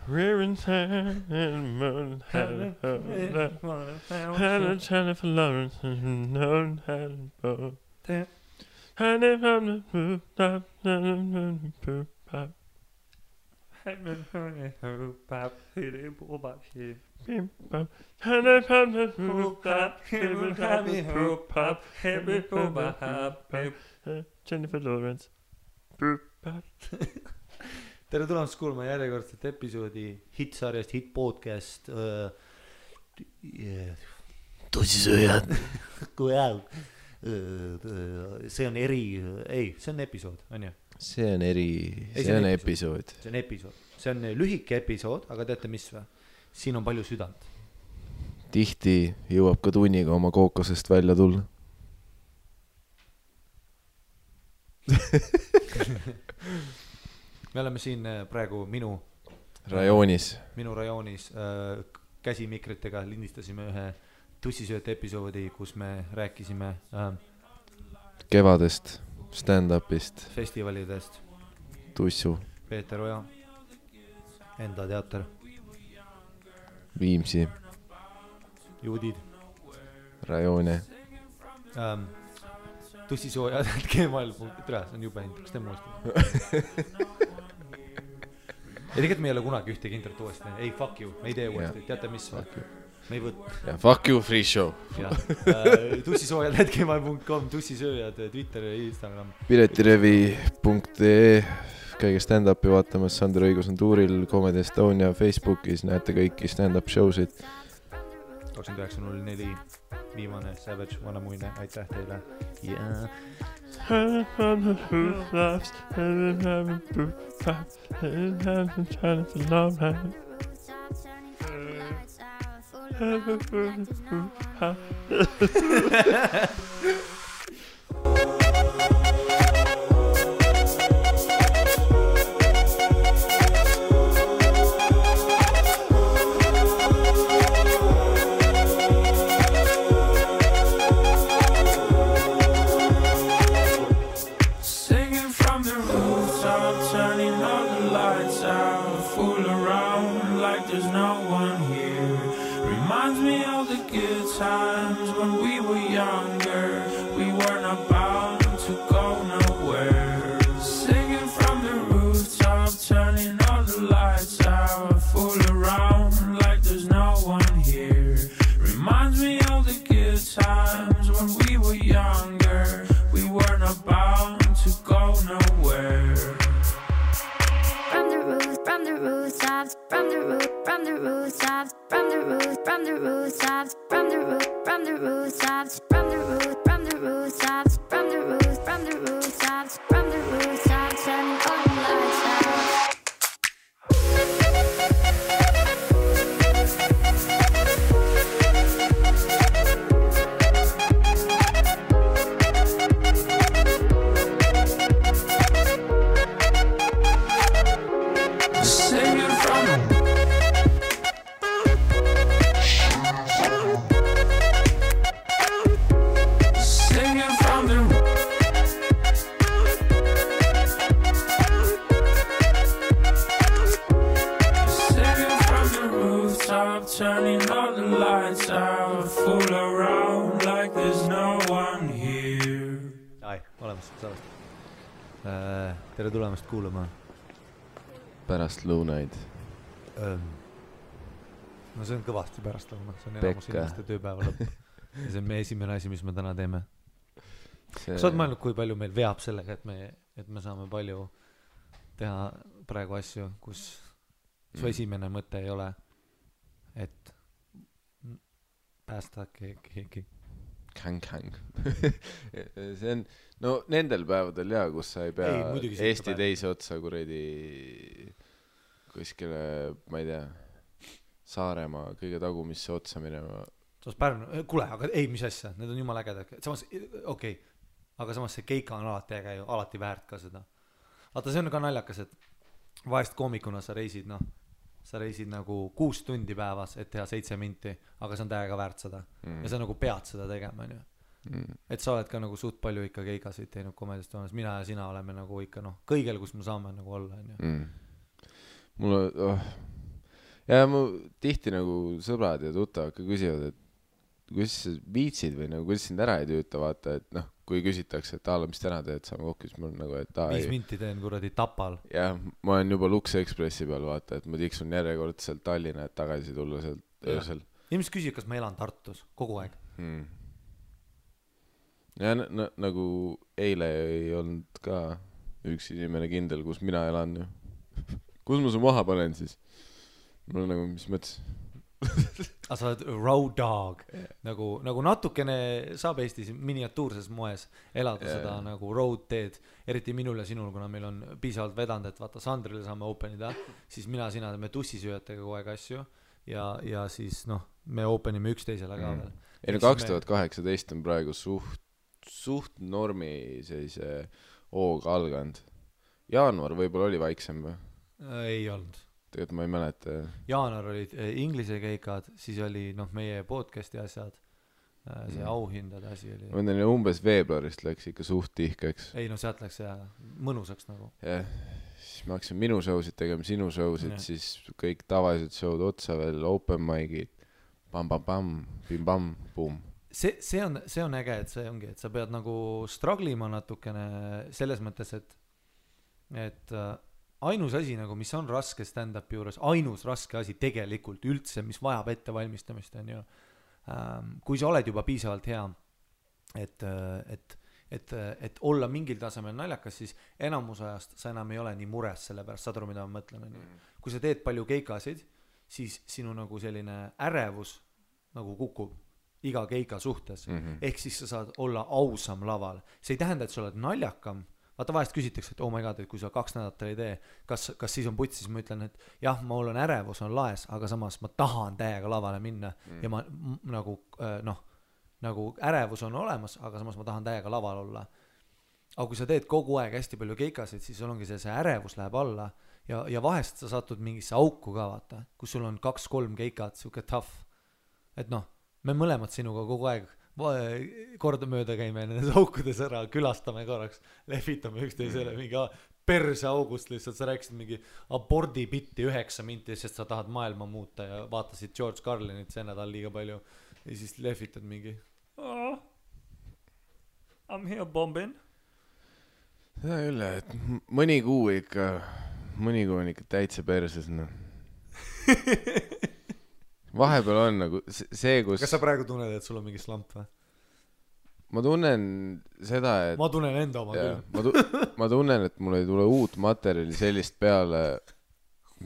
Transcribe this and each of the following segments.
We're in town and moon had a Jennifer Lawrence and known had a boat. And if I'm the poop up, poop up. And if I'm the poop up, and if I'm the poop up, Jennifer Lawrence, poop up. Tere tulemast kuulma järjekordset episoodi hitsarjast, hit-podcast Tussisööjad. See on see on episood, on ju? See on episood. See on episood. See on lühike episood, aga teate mis või? Siin on palju südant. Tihti jõuab ka tunniga oma kookosest välja tulla. Me oleme siin praegu minu rajoonis käsimikritega lindistasime ühe tussisööte episoodi, kus me rääkisime kevadest, stand-upist, festivalidest, Tussu, Peeter Oja, Enda teater, Viimsi, Juudid, rajoone, tussisoojad, gmail.com, see on jube hind, kas te muust? Ja tegelikult me ei ole kunagi ühtegi internet uuesti. Ei, fuck you, me ei tee uuesti, teate mis või? Me ei võt. Ja fuck you, free show. Tussisoojad.gmail.com, tussisööjad, Twitter ja Instagram. Piletirevi.ee, käige stand-upi vaatamas, Sander Õigus on tuuril, Comedy Estonia Facebookis, näete kõiki stand-up showsid. 29.04, viimane Savage, Vanamuine, aitäh teile. Yeah. Tere tulemast kuulama. Pärast lõunaid. No see on kõvasti pärast lõuna. See on elamus inimeste tööpäeva lõpp. Ja see on meie esimene asi, mis me täna teeme. Kas oled mõelnud, kui palju meil veab sellega, et me saame palju teha praegu asju, kus su esimene mõte ei ole, et päästa keegi. Käng. See on, no nendel päevadel kus sa ei pea Eesti teise otsa kuredi kuskile, ma ei tea, Saaremaa kõige tagumisse otsa minema. Kuule, aga ei, mis asja, need on jumala ägedad. Samas, okei, aga samas see keika on alati väärt ka seda. Vaata, see on ka naljakas, et vahest koomikuna sa reisid nagu 6 tundi päevas, et teha 7 minti, aga see on täiega väärt seda. Ja sa nagu pead seda tegema, ju. Et sa oled ka nagu suht palju ikka keikasid teinud komedist olemas. Mina ja sina oleme nagu ikka kõigel, kus me saame nagu olla, ju. Mulle ja mu tihti nagu sõbrad ja tuttavad ka küsivad, et kuidas sa viitsid või nagu kuidas sind ära ei tüüta, vaata, et noh, kui küsitakse, et mis täna teed, saame kokku, siis mul nagu, et 5 minti teen kuradi Tapal. jah, ma olen juba Lux Expressi peal, vaata, et ma tiksun järjekordselt Tallinna, et tagasi tulla sealt öösel. Inimesed küsivad, kas ma elan Tartus kogu aeg. Ja nagu eile ei olnud ka üks inimene kindel, kus mina elan ju. Kus ma su maha panen siis? Mul nagu, mis mõttes? Aga sa oled road dog, nagu natukene saab Eestis miniatuurses moes elada seda nagu road teed, eriti minul ja sinul, kuna meil on piisavalt vedanud, et vaata Sandrile saame openida, siis sina teeme tussisööjatega kogu aeg asju ja siis noh, me openime üksteisele ka veel. Ei no 2018 on praegu suht normi sellise hooga alganud. Jaanuar võib-olla oli vaiksem või? Ei olnud. Tegelikult ma ei mäleta. Jaanuar olid inglise keikad, siis oli meie podcasti asjad, see auhindade asi oli. Ma mõtlen, umbes veebruarist läks ikka suht tihkeks. Ei no sealt läks mõnusaks nagu. Jah, siis me hakkasin minu show'sid tegema, sinu show'sid, siis kõik tavalised show'd otsa veel, open mic'id, pam-pam-pam, bim-bam, boom. See on äge, et see ongi, et sa pead nagu struglima natukene selles mõttes, et ainus asi nagu, mis on raske stand-upi juures, ainus raske asi tegelikult üldse, mis vajab ettevalmistamist on ju, kui sa oled juba piisavalt hea, et olla mingil tasemel naljakas, siis enamus ajast sa enam ei ole nii mures selle pärast, saad aru, mida ma mõtlen on ju. Kui sa teed palju keikasid, siis sinu nagu selline ärevus nagu kukub iga keika suhtes, ehk siis sa saad olla ausam laval. See ei tähenda, et sa oled naljakam. Vaata vahest küsitakse, et oh my god, et kui sa 2 nädalat ei tee, kas siis on puts, siis ma ütlen, et jah, mul on ärevus, on laes, aga samas ma tahan täiega lavale minna ja ma nagu ärevus on olemas, aga samas ma tahan täiega laval olla. Aga kui sa teed kogu aeg hästi palju keikasid, siis sul ongi see ärevus läheb alla ja vahest sa satud mingisse auku ka vaata, kus sul on 2-3 keikat, siuke tough, et noh, me mõlemad sinuga kogu aeg kordamööda käime nendes aukudes ära, külastame korraks, lehvitame üksteisele mingi perse august lihtsalt, sa rääkisid mingi abordi bitti 9 minti, sest sa tahad maailma muuta ja vaatasid George Carlinit see nädal liiga palju ja siis lehvitad mingi I'm here bombing. Seda küll, et mõni kuu on ikka täitsa perses, noh. Vahepeal on nagu see, kus... Kas sa praegu tunned, et sul on mingi slamp või? Ma tunnen seda, et... Ma tunnen enda oma küll. Ma tunnen, et mul ei tule uut materjali sellist peale,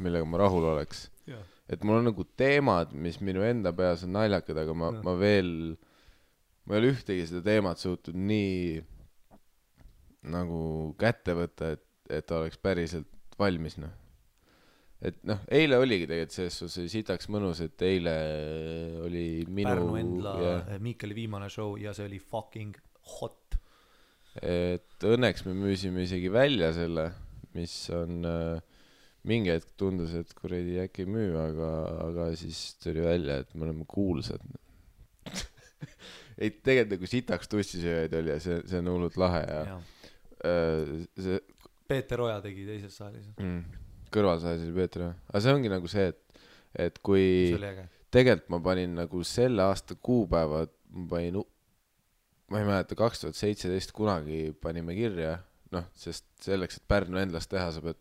millega ma rahul oleks. Ja. Et mul on nagu teemad, mis minu enda peas on naljakad, aga ma ei ole ühtegi seda teemat suutnud nii nagu kätte võtta, et oleks päriselt valmis, noh. Et noh, eile oligi tegelikult see sitaks mõnus, et eile oli minu... Pärnu Endla, Miikeli viimane show ja see oli fucking hot. Et õnneks me müüsime isegi välja selle, mis on mingi hetk tundus, et kuradi äkki ei müü, aga siis tuli välja, et me oleme kuulsad. Ei, tegelikult nagu sitaks tussisööjaid oli ja see on hullult lahe ja Peeter Oja tegi teises saalis. Kõrvalsaalis oli Peeter, aga see ongi nagu see, et kui tegelikult ma panin nagu selle aasta kuupäevad, ma ei mäleta 2017 kunagi panime kirja, noh, sest selleks, et Pärnu Endlast teha, sa pead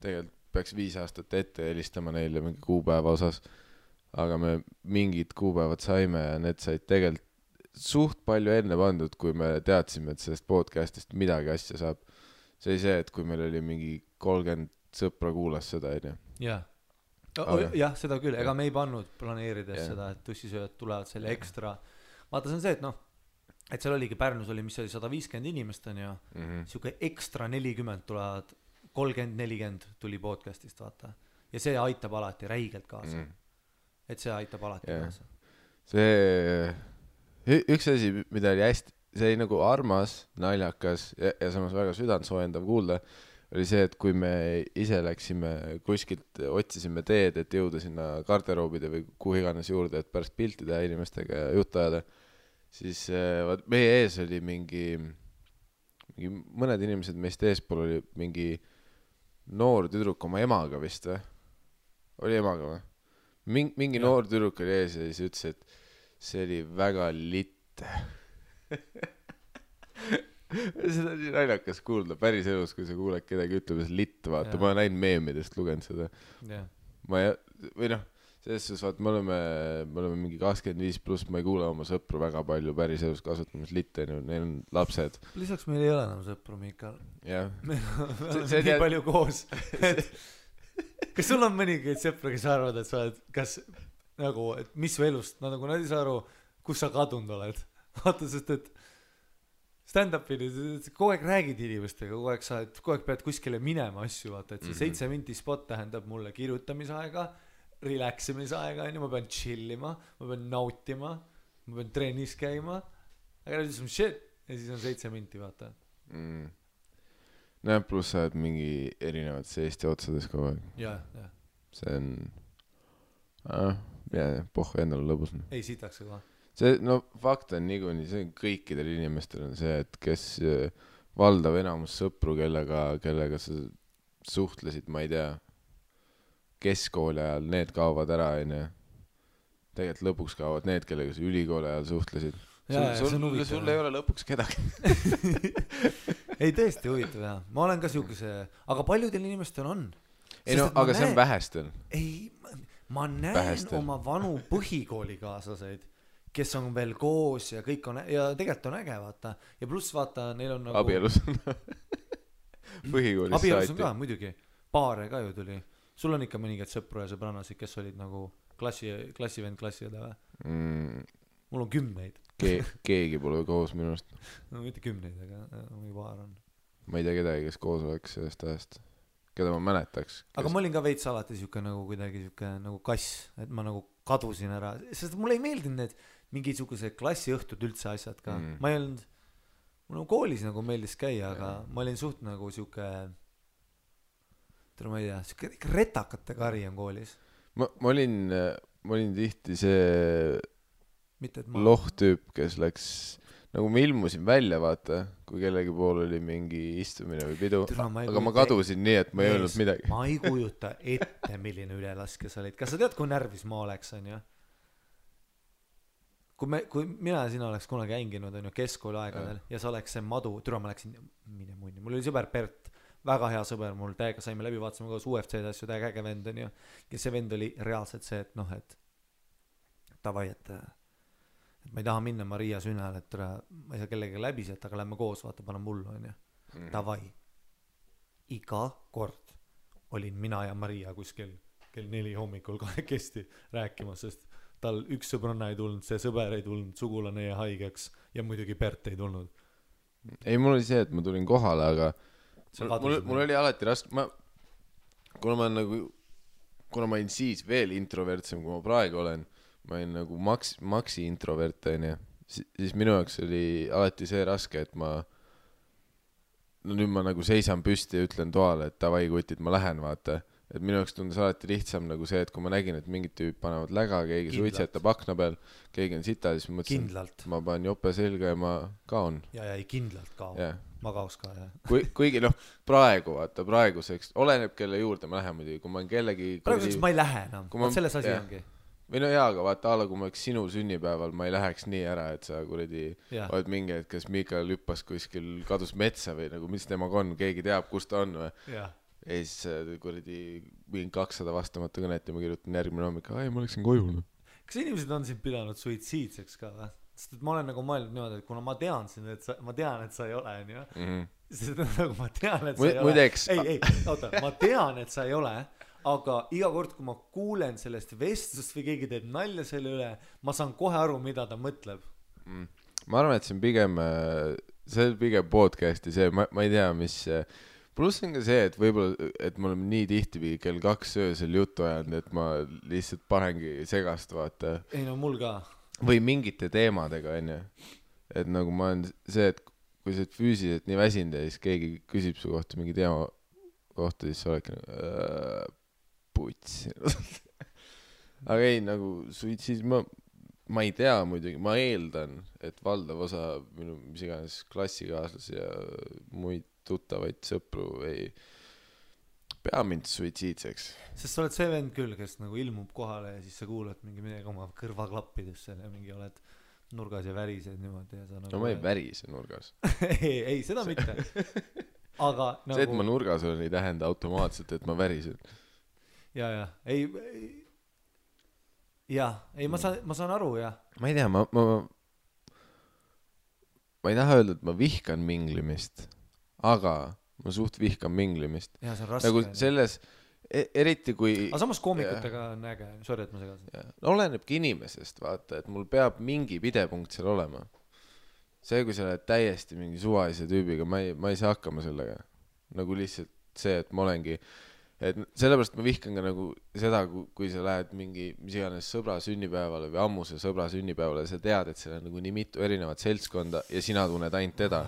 tegelikult peaks 5 aastat ette helistama neile mingi kuupäeva osas, aga me mingid kuupäevad saime ja need said tegelikult suht palju enne pandud, kui me teadsime, et sellest podcastist midagi asja saab. See oli see, et kui meil oli mingi 30 sõpra kuulas seda, ei tea. Jah, seda küll, ega me ei pannud planeerides seda, et tussisööjad tulevad selle ekstra. Vaata, see on see, et noh, et seal oligi Pärnus oli, mis oli 150 inimest on ju, siuke ekstra 40 tulevad, 30-40 tuli podcastist, vaata. Ja see aitab alati räigelt kaasa. Et see aitab alati kaasa. See üks asi, mida oli hästi, see oli nagu armas, naljakas ja samas väga südantsoojendav kuulda, oli see, et kui me ise läksime kuskilt, otsisime teed, et jõuda sinna garderoobide või kuhu iganes juurde, et pärast pilti teha inimestega ja juttu ajada, siis meie ees oli mingi mõned inimesed meist eespool oli mingi noor tüdruk oma emaga vist või? oli emaga või? Mingi noor tüdruk oli ees ja siis ütles, et see oli väga litt. Seda on nii naljakas kuulda päris elus, kui sa kuuled kedagi ütleb, et litt, vaata, ma olen näinud meemidest, lugenud seda. Või noh, selles suhtes, vaata, me oleme mingi 25+, ma ei kuule oma sõpru väga palju päris elus kasutamas litte, neil on lapsed. Lisaks meil ei ole enam sõpru, Miikal. Jah. Me oleme nii palju koos. Kas sul on mõningaid sõpru, kes arvad, et sa oled, kas nagu, et mis su elust, nad ei saa aru, kus sa kadunud oled. Vaata, sest et stand-up'ini, kogu aeg räägid inimestega, kogu aeg pead kuskile minema asju, vaata, et see 7 minti spot tähendab mulle kirjutamisaega, relaximisaega, ma pean chillima, ma pean nautima, ma pean trennis käima, aga nüüd on shit, ja siis on 7 minti, vaata. Näe, pluss sa oled mingi erinevates Eesti otsades kogu aeg. Ja. See on, pohhu endale lõbus. Ei sitaks ka. See, no fakt on niikuinii, see kõikidel inimestel on see, et kes valdav enamus sõpru, kellega sa suhtlesid, ma ei tea, keskkooli ajal, need kaovad ära, tegelikult lõpuks kaovad need, kellega sa ülikooli ajal suhtlesid. Sul ei ole lõpuks kedagi. Ei tõesti huvitav, jah. Ma olen ka siukese, aga paljudel inimestel on. Ei no, aga see on vähestel. Ei, ma näen oma vanu põhikoolikaaslaseid, kes on veel koos ja kõik on, ja tegelikult on äge, vaata. Ja pluss vaata, neil on nagu... Abielus on põhikoolis saati. Abielus on ka, muidugi. Paare ka ju tuli. Sul on ikka mõningad sõpru ja sõbrannasid, kes olid nagu klassivend klassiõde või? Mul on 10. Keegi pole koos minust. No mitte 10, aga mingi paar on. Ma ei tea kedagi, kes koos oleks sellest ajast. Keda ma mäletaks. Aga ma olin ka veits alati siuke nagu kuidagi siuke nagu kass, et ma nagu kadusin ära. Sest mulle ei meeldinud need mingisugused klassiõhtud üldse asjad ka. Ma ei olnud, mul koolis nagu meeldis käia, aga ma olin suht nagu siuke, ma ei tea, siuke retakate kari on koolis. Ma olin tihti see lohtüüp, kes läks, nagu ma ilmusin välja, vaata, kui kellegi pool oli mingi istumine või pidu, aga ma kadusin nii, et ma ei öelnud midagi. Ma ei kujuta ette, milline ülelaske sa olid. Kas sa tead, kui närvis ma oleks, on ju? Kui mina ja sina oleks kunagi hänginud, on ju, keskkooli aegadel ja sa oleks see madu, ma läksin mine munni. Mul oli sõber Bert, väga hea sõber mul, täiega saime läbi, vaatasime koos UFC-d asju, täiega äge vend, on ju. Ja see vend oli reaalselt see, et noh, et tavai, et ma ei taha minna Maria sünnal, et ma ei saa kellega läbi sealt, aga lähme koos, vaata, panen mullu, on ju. Tavai. Iga kord olin mina ja Maria kuskil kell 4 hommikul kahekesti rääkimas, sest tal üks sõbranna ei tulnud, see sõber ei tulnud, sugulane jäi haigeks ja muidugi Bert ei tulnud. Ei, mul oli see, et ma tulin kohale, aga mul oli alati raske, kuna ma olin siis veel introvertsem, kui ma praegu olen, ma olin nagu maksi introvert, siis minu jaoks oli alati see raske, et nüüd ma nagu seisan püsti ja ütlen toale, et davai kutid, ma lähen, vaata. Et minu jaoks tundus alati lihtsam nagu see, et kui ma nägin, et mingid tüüp panevad läga, keegi suitsetab akna peal, keegi on sita, siis ma mõtlesin, ma panen jope selga ja ma kaon. Ja ei kindlalt kao. Ma kaos ka, jah. Kuigi praeguseks, oleneb kelle juurde ma lähen muidugi, kui ma olen kellegi... Praeguseks ma ei lähe enam, selles asi ongi. Või no jaa, aga vaata alla, kui ma oleks sinu sünnipäeval, ma ei läheks nii ära, et sa kuradi oled mingi, et kas Miikal hüppas kuskil, kadus metsa või nagu, mis temaga on, keegi teab, kus ta on või. Ja siis kuradi mingi 200 vastamata kõnet ja ma kirjutan järgmine hommik, ma läksin koju. Kas inimesed on sind pidanud suitsiidseks ka või? Sest et ma olen nagu mõelnud niimoodi, et kuna ma tean, et sa ei ole, on ju. Sest nagu ma tean, et sa ei ole. Oota, ma tean, et sa ei ole. Aga iga kord, kui ma kuulen sellest vestlust või keegi teeb nalja selle üle, ma saan kohe aru, mida ta mõtleb. Ma arvan, et see on pigem podcasti see, ma ei tea, mis... Pluss on ka see, et võib-olla, et me oleme nii tihti kell 2 öösel juttu ajanud, et ma lihtsalt panengi segast, vaata. Ei no mul ka. Või mingite teemadega, on ju. Et nagu ma olen see, et kui sa oled füüsiliselt nii väsinud ja siis keegi küsib su kohta mingi teema kohta, siis sa oledki puts. Aga ei, nagu suitsis, ma ei tea muidugi, ma eeldan, et valdav osa minu mis iganes klassikaaslasi ja muid tuttavaid sõpru pea mind suitsiidseks. Sest sa oled see vend küll, kes nagu ilmub kohale ja siis sa kuulad mingi midagi oma kõrvaklappidesse ja mingi oled nurgas ja värised niimoodi ja sa nagu... No ma ei värise nurgas. ei, seda mitte. Aga nagu... See, et ma nurgas olen, ei tähenda automaatselt, et ma värisen. Ja. Ei, ma saan aru, jah. Ma ei tea, ma ei taha öelda, et ma vihkan minglimist, aga ma suht vihkan minglimist. Ja, see on raske. Nagu selles, eriti kui... Aga samas koomikutega on äge, sorry, et ma segasin. Olenebki inimesest, vaata, et mul peab mingi pidepunkt seal olema. See, kui sa oled täiesti mingi suvalise tüübiga, ma ei saa hakkama sellega. Nagu lihtsalt see, et ma olengi... Et sellepärast ma vihkan ka nagu seda, kui sa lähed mingi mis iganes sõbra sünnipäevale või ammuse sõbra sünnipäevale ja sa tead, et seal on nagu nii mitu erinevat seltskonda ja sina tunned ainult teda.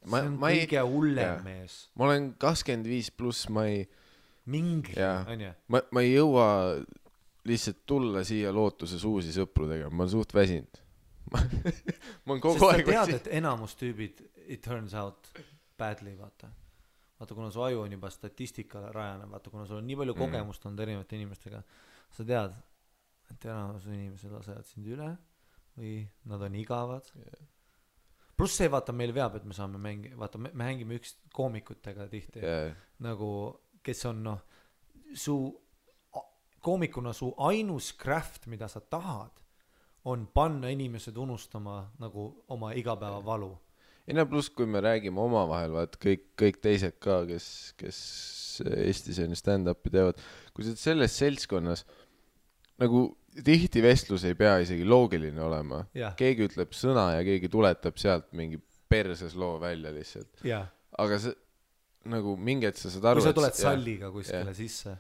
See on kõige hullem mees. Ma olen 25 pluss, ma ei... Mingi, on ju? Ma ei jõua lihtsalt tulla siia lootuses uusi sõpru tegema, ma olen suht väsinud. Ma olen kogu aeg väsinud. Sest sa tead, et enamus tüübid it turns out badly, vaata, kuna su aju on juba statistikale rajane, vaata, kuna sul on nii palju kogemust olnud erinevate inimestega, sa tead, et enamus inimesed lasevad sind üle või nad on igavad. Pluss see, vaata, meil veab, et me saame vaata, me hängime üks koomikutega tihti, nagu, kes on, koomikuna su ainus craft, mida sa tahad, on panna inimesed unustama nagu oma igapäeva valu. Ja pluss, kui me räägime omavahel, vaat kõik teised ka, kes Eestis on stand-upi teevad, kui sa selles seltskonnas, nagu tihti vestlus ei pea isegi loogiline olema. Keegi ütleb sõna ja keegi tuletab sealt mingi perses loo välja lihtsalt. Aga see, nagu mingi hetk sa saad aru... Kui sa tuled salliga kuskile sisse.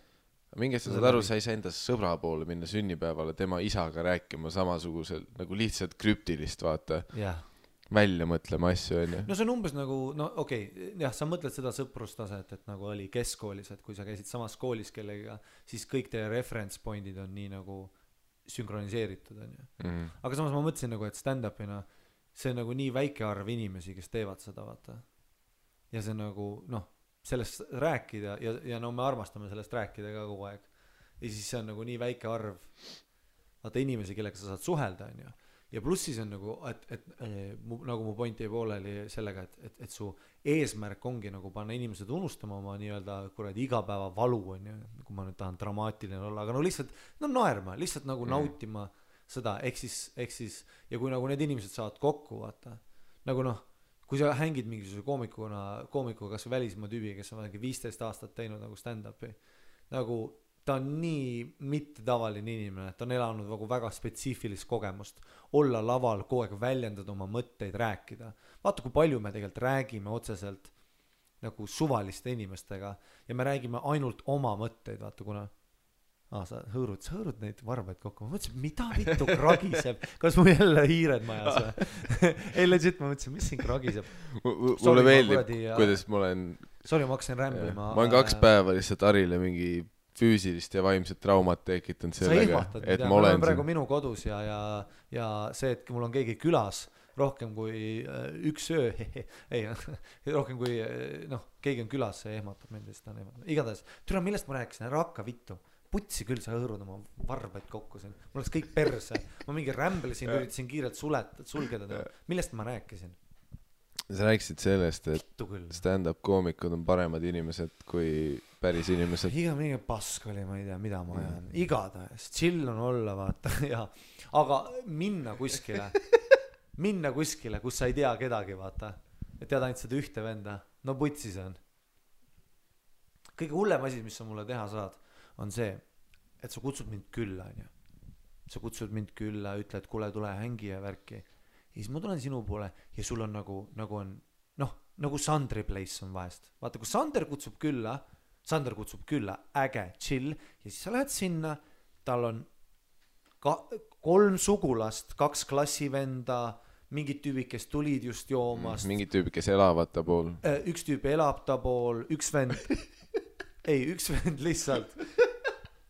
Mingi hetk sa saad aru, sa ei saa enda sõbra poole minna sünnipäevale tema isaga rääkima samasugusel, nagu lihtsalt krüptilist, vaata. Välja mõtlema asju, on ju. No see on umbes nagu, jah, sa mõtled seda sõprustaset, et nagu oli keskkoolis, et kui sa käisid samas koolis kellega, siis kõik teie reference pointid on nii nagu sünkroniseeritud, on ju. Aga samas ma mõtlesin nagu, et stand-upina see on nagu nii väike arv inimesi, kes teevad seda, vaata. Ja see nagu, sellest rääkida ja me armastame sellest rääkida ka kogu aeg. Ja siis see on nagu nii väike arv, vaata inimesi, kellega sa saad suhelda, on ju. Ja pluss siis on nagu, et nagu mu point jäi pooleli sellega, et su eesmärk ongi nagu panna inimesed unustama oma nii-öelda kuradi igapäeva valu, on ju, kui ma nüüd tahan dramaatiline olla, aga no lihtsalt naerma, lihtsalt nagu nautima seda, ehk siis, ja kui nagu need inimesed saavad kokku, vaata, nagu kui sa hängid mingisuguse koomikuga kas või välismaa tüübi, kes on 15 aastat teinud nagu stand-upi, nagu ta on nii mitte tavaline inimene, et ta on elanud nagu väga spetsiifilist kogemust, olla laval, kogu aeg väljendada oma mõtteid, rääkida. Vaata, kui palju me tegelikult räägime otseselt nagu suvaliste inimestega ja me räägime ainult oma mõtteid, vaata, kuna sa hõõrud neid varbaid kokku. Ma mõtlesin, mida vittu kragiseb? Kas mu jälle hiired majas või? Ei, legit, ma mõtlesin, mis siin kragiseb? Mulle meeldib, kuidas ma olen... Sorry, ma hakkasin rämblima. Ma olen 2 päeva lihtsalt Arile mingi füüsilist ja vaimset traumat tekitanud sellega, et ma olen praegu minu kodus ja see, et mul on keegi külas rohkem kui üks öö, ei, rohkem kui, keegi on külas, see ehmatab mind, ta on ehmatab. Igatahes, türa, millest ma rääkisin, ära hakka vittu. Putsi küll sa hõõrud oma varbaid kokku siin. Mul oleks kõik perse. Ma mingi rämblesin, üritasin kiirelt sulgeda. Millest ma rääkisin? Sa rääkisid sellest, et stand-up koomikud on paremad inimesed kui päris inimesed. Iga mingi pask oli, ma ei tea, mida ma ajan. Igatahes, chill on olla, vaata. Ja. Aga minna kuskile, kus sa ei tea kedagi, vaata. Et tead ainult seda ühte venda. No putsi see on. Kõige hullem asi, mis sa mulle teha saad, on see, et sa kutsud mind külla, on ju. Sa kutsud mind külla, ütled, kuule, tule hängi ja värki. Ja siis ma tulen sinu poole ja sul on nagu on, nagu Sandri place on vahest. Vaata, kui Sander kutsub külla, äge, chill, ja siis sa lähed sinna, tal on 3 sugulast, 2 klassivenda, mingid tüübid, kes tulid just joomast. Mingid tüübid, kes elavad ta pool. Üks tüüp elab ta pool, üks vend lihtsalt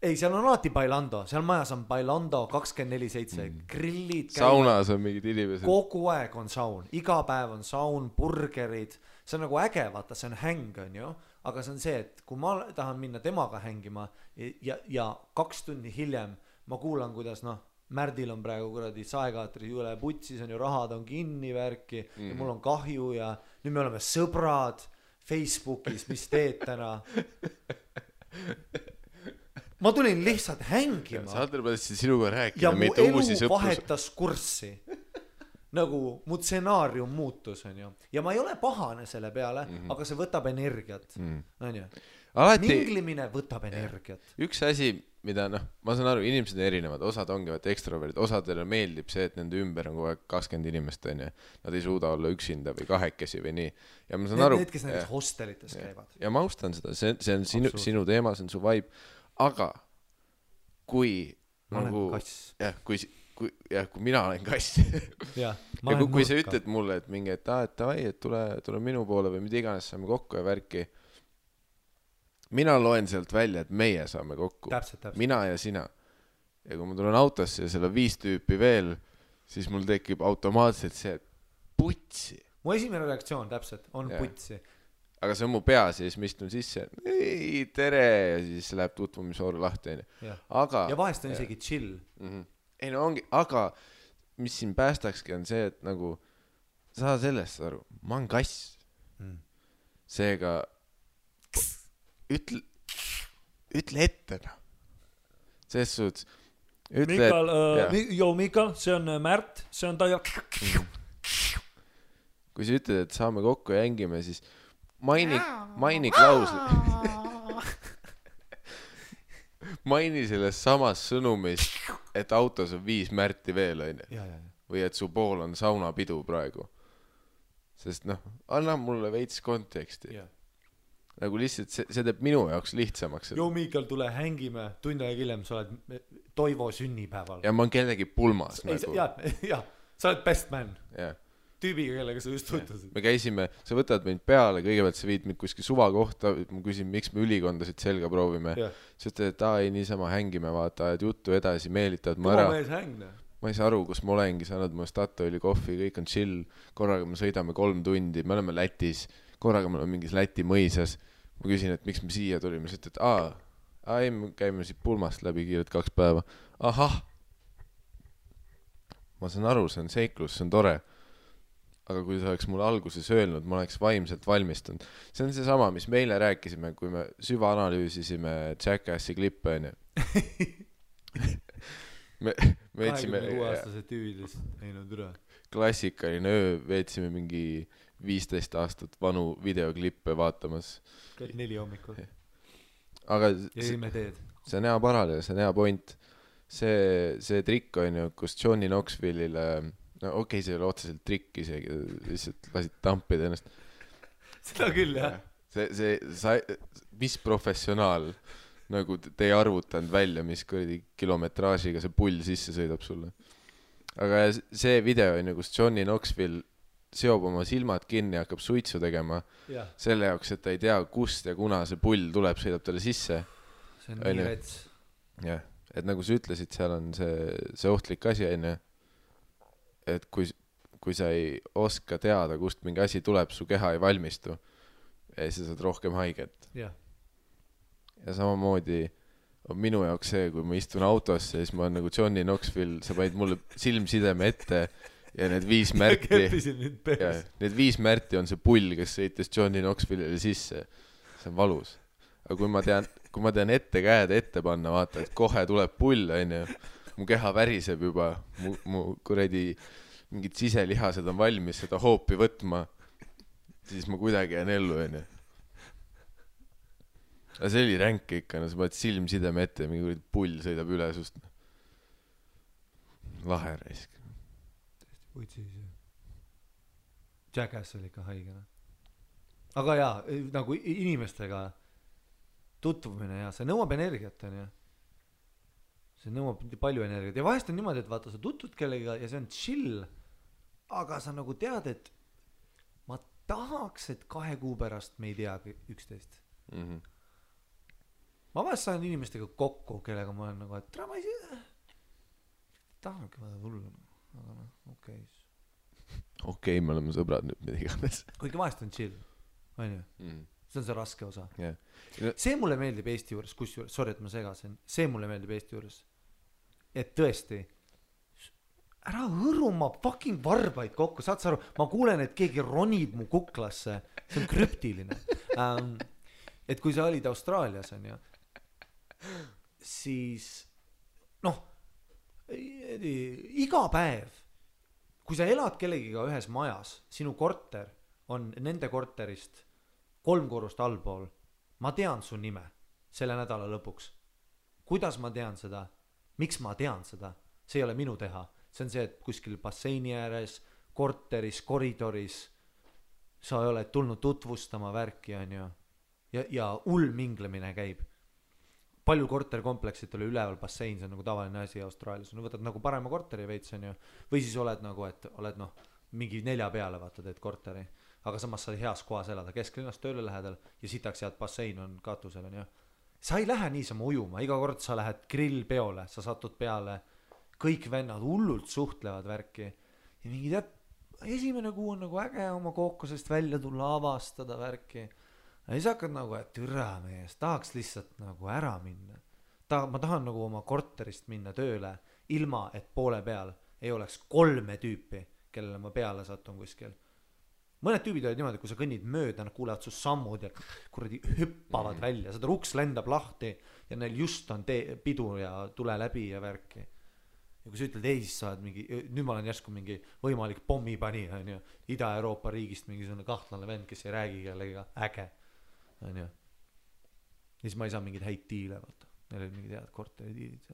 ei, seal on alati bailando, seal majas on bailando 24/7, grillid saunas on mingid inimesed, kogu aeg on saun, iga päev on saun, burgerid, see on nagu äge, vaata, see on häng, on ju, aga see on see, et kui ma tahan minna temaga hängima ja 2 tundi hiljem ma kuulan, kuidas noh, Märdil on praegu kuradi saekaatri üle putsis on ju, rahad on kinni värki ja mul on kahju ja nüüd me oleme sõbrad Facebookis, mis teed täna? Ma tulin lihtsalt hängima. Sander mõtlesin sinuga rääkida, ja mu elu vahetas kurssi. Nagu mu stsenaarium muutus, on ju. Ja ma ei ole pahane selle peale, aga see võtab energiat. On ju? Minglimine võtab energiat. Üks asi, mida ma saan aru, inimesed on erinevad, osad ongi ekstroverdid, osadele meeldib see, et nende ümber on kogu aeg 20 inimest, on ju. Nad ei suuda olla üksinda või kahekesi või nii. Ja ma saan aru. Need, kes näiteks hostelites käivad. Ja ma austan seda, see on sinu teema, see on su vibe. Aga kui ma olen kass. Kui mina olen kass ja kui sa ütled mulle, et mingi, et tule minu poole või mida iganes saame kokku ja värki, mina loen sealt välja, et meie saame kokku. Täpselt. Mina ja sina. Ja kui ma tulen autosse ja seal on 5 tüüpi veel, siis mul tekib automaatselt see putsi. Mu esimene reaktsioon täpselt on putsi. Aga see on mu peas ja siis ma istun sisse, ei, tere, ja siis läheb tutvumisvooru lahti. Aga, ja vahest on isegi chill. Ei no ongi, aga mis siin päästakski on see, et nagu saa sellest aru, ma olen kass. Seega ütle ette. Selles suhtes Mikael, see on Märt, see on Taja. Kui sa ütled, et saame kokku ja hängime, siis maini klausli. Maini selles samas sõnumis, et autos on 5 Märti veel, on ju. Või et su pool on saunapidu praegu. Sest anna mulle veits konteksti. Nagu lihtsalt see teeb minu jaoks lihtsamaks. Joo, Mikael, tule hängime. Tund aega hiljem sa oled Toivo sünnipäeval. Ja ma olen kellegi pulmas. Ja, sa oled best man. Jah. Tüübiga, kellega sa just tutvusid. Me käisime, sa võtad mind peale, kõigepealt sa viid mind kuskil suva kohta, ma küsin, miks me ülikondasid selga proovime. Sa ütled, et ei niisama hängime, vaata, et juttu edasi meelitad ma ära. Ma ei saa aru, kus ma olengi, sa annad mu Statoili kohvi, kõik on chill, korraga me sõidame 3 tundi, me oleme Lätis, korraga me oleme mingis Läti mõisas. Ma küsin, et miks me siia tulime, sa ütled, ei, me käime siit pulmast läbi kiiret 2 päeva. Ahah! Ma saan aru, see on seiklus, see on tore. Aga kui sa oleks mulle alguses öelnud, ma oleks vaimselt valmistunud. See on see sama, mis meile rääkisime, kui me süvaanalüüsisime Jackassi klippe, on ju. Me veetsime 26-aastase tüüvidest näinud üle. Klassikaline öö, veetsime mingi 15 aastat vanu videoklippe vaatamas. 4 hommikul. Aga see on hea paralleel, see on hea point. See trikk on ju, kus Johnny Knoxville'ile okei, see ei ole otseselt trikk isegi, lihtsalt lasid tampida ennast. Seda küll, jah. Mis professionaal nagu te ei arvutanud välja, mis kilometraažiga see pull sisse sõidab sulle. Aga see video on ju, kus Johnny Knoxville seob oma silmad kinni ja hakkab suitsu tegema selle jaoks, et ta ei tea, kust ja kuna see pull tuleb, sõidab talle sisse. See on nii rets. Jah, et nagu sa ütlesid, seal on see ohtlik asi, on ju. Et kui sa ei oska teada, kust mingi asi tuleb, su keha ei valmistu ja siis sa saad rohkem haiget. Ja samamoodi on minu jaoks see, kui ma istun autosse, siis ma olen nagu Johnny Knoxville, sa panid mulle silmsideme ette ja need 5 Märti need 5 Märti on see pull, kes sõitis Johnny Knoxville'ile sisse. See on valus. Aga kui ma tean ette käed ette panna, vaata, et kohe tuleb pull, on ju. Mu keha väriseb juba, mu kuradi mingid siselihased on valmis seda hoopi võtma, siis ma kuidagi jään ellu, on ju. Aga see oli ränk ikka, sa paned silmsideme ette ja mingi pull sõidab üle sust. Lahe raisk. Jackass oli ikka haigena. Aga jaa, nagu inimestega tutvumine ja see nõuab energiat, on ju. See nõuab palju energiat ja vahest on niimoodi, et vaata, sa tutvud kellega ja see on chill, aga sa nagu tead, et ma tahaks, et 2 kuu pärast me ei tea üksteist. ma vahest saan inimestega kokku, kellega ma olen nagu, et tere, ma ei tahanudki vaja tulla, aga noh, okei, me oleme sõbrad nüüd, mida iganes. Kuigi vahest on chill, on ju? See on see raske osa. Yeah. See mulle meeldib Eesti juures, kusjuures, sorry, et ma segasin, see mulle meeldib Eesti juures. Et tõesti, ära hõru ma fucking varbaid kokku, saad sa aru, ma kuulen, et keegi ronib mu kuklasse, see on krüptiline. Et kui sa olid Austraalias, on ju, siis noh, iga päev, kui sa elad kellegiga ühes majas, sinu korter on nende korterist 3 korrust allpool, ma tean su nime selle nädala lõpuks. Kuidas ma tean seda? Miks ma tean seda? See ei ole minu teha. See on see, et kuskil basseini ääres, korteris, koridoris sa oled tulnud tutvustama värki, on ju. Ja minglemine käib. Palju korterkompleksid oli üleval bassein, see on nagu tavaline asi Austraalias. No võtad nagu parema korteri veits, on ju. Või siis oled nagu, et oled noh, mingi 4 peale vaata teed korteri. Aga samas sa heas kohas elada, kesklinnast tööle lähedal ja sitaks head bassein on katusel, on ju. Sa ei lähe niisama ujuma, iga kord sa lähed grillpeole, sa satud peale, kõik vennad hullult suhtlevad värki ja mingi tead, esimene kuu on nagu äge oma kookosest välja tulla, avastada värki ja siis hakkad nagu, et türa mees, tahaks lihtsalt nagu ära minna. Ma tahan nagu oma korterist minna tööle ilma, et poole peal ei oleks 3 tüüpi, kellele ma peale satun kuskil. Mõned tüübid olid niimoodi, kui sa kõnnid mööda, nad kuulevad su sammud ja kuradi hüppavad välja, seda ruks lendab lahti ja neil just on pidu ja tule läbi ja värki. Ja kui sa ütled, ei, siis sa oled mingi, nüüd ma olen järsku mingi võimalik pommipani, on ju, Ida-Euroopa riigist mingi selline kahtlane vend, kes ei räägi kellega, äge, on ju. Ja siis ma ei saa mingid häid diile, vaata. Neil olid mingid head korteri diilid.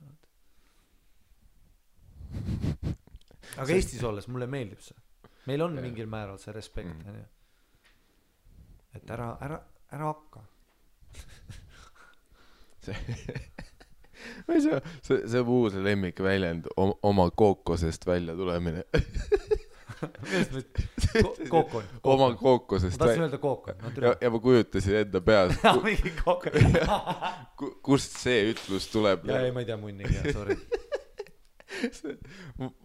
Aga Eestis olles mulle meeldib see. Meil on mingil määral see respekt, on ju. Et ära hakka. see muu see lemmik väljend oma kookosest välja tulemine. Kookon. Oma kookosest. Ma tahtsin öelda kookon. Ja ma kujutasin enda peas. Mingi kookon. Kust see ütlus tuleb? Ja ei, ma ei tea munnigi, sorry.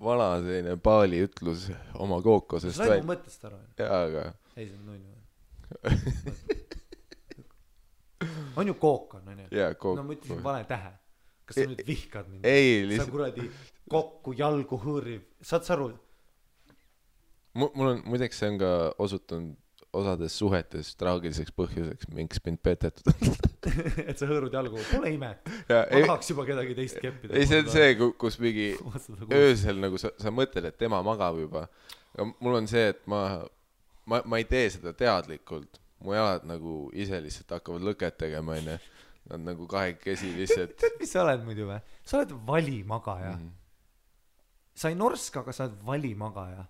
Vana selline paali ütlus oma kookosest. Sa said mu mõttest ära? Jaa, aga... Ei, see on nunnu. On ju kookon, on ju? Jaa, kookon. No ma ütlesin vale tähe. Kas sa nüüd vihkad mind? Ei, sa kuradi kokku jalgu hõõriv. Saad sa aru? Mul on, muideks see on ka osutunud osades suhetes traagiliseks põhjuseks, minks mind petetud. Et sa hõõrud jalgu, pole ime. Ma tahaks juba kedagi teist keppida. Ei, see on see, kus mingi öösel nagu sa mõtled, et tema magab juba. Aga mul on see, et ma ei tee seda teadlikult. Mu jalad nagu ise lihtsalt hakkavad lõket tegema, enne. Nad nagu kahekesi lihtsalt... Tead, mis sa oled muidu või? Sa oled valimagaja. Sa ei norska, aga sa oled valimagaja.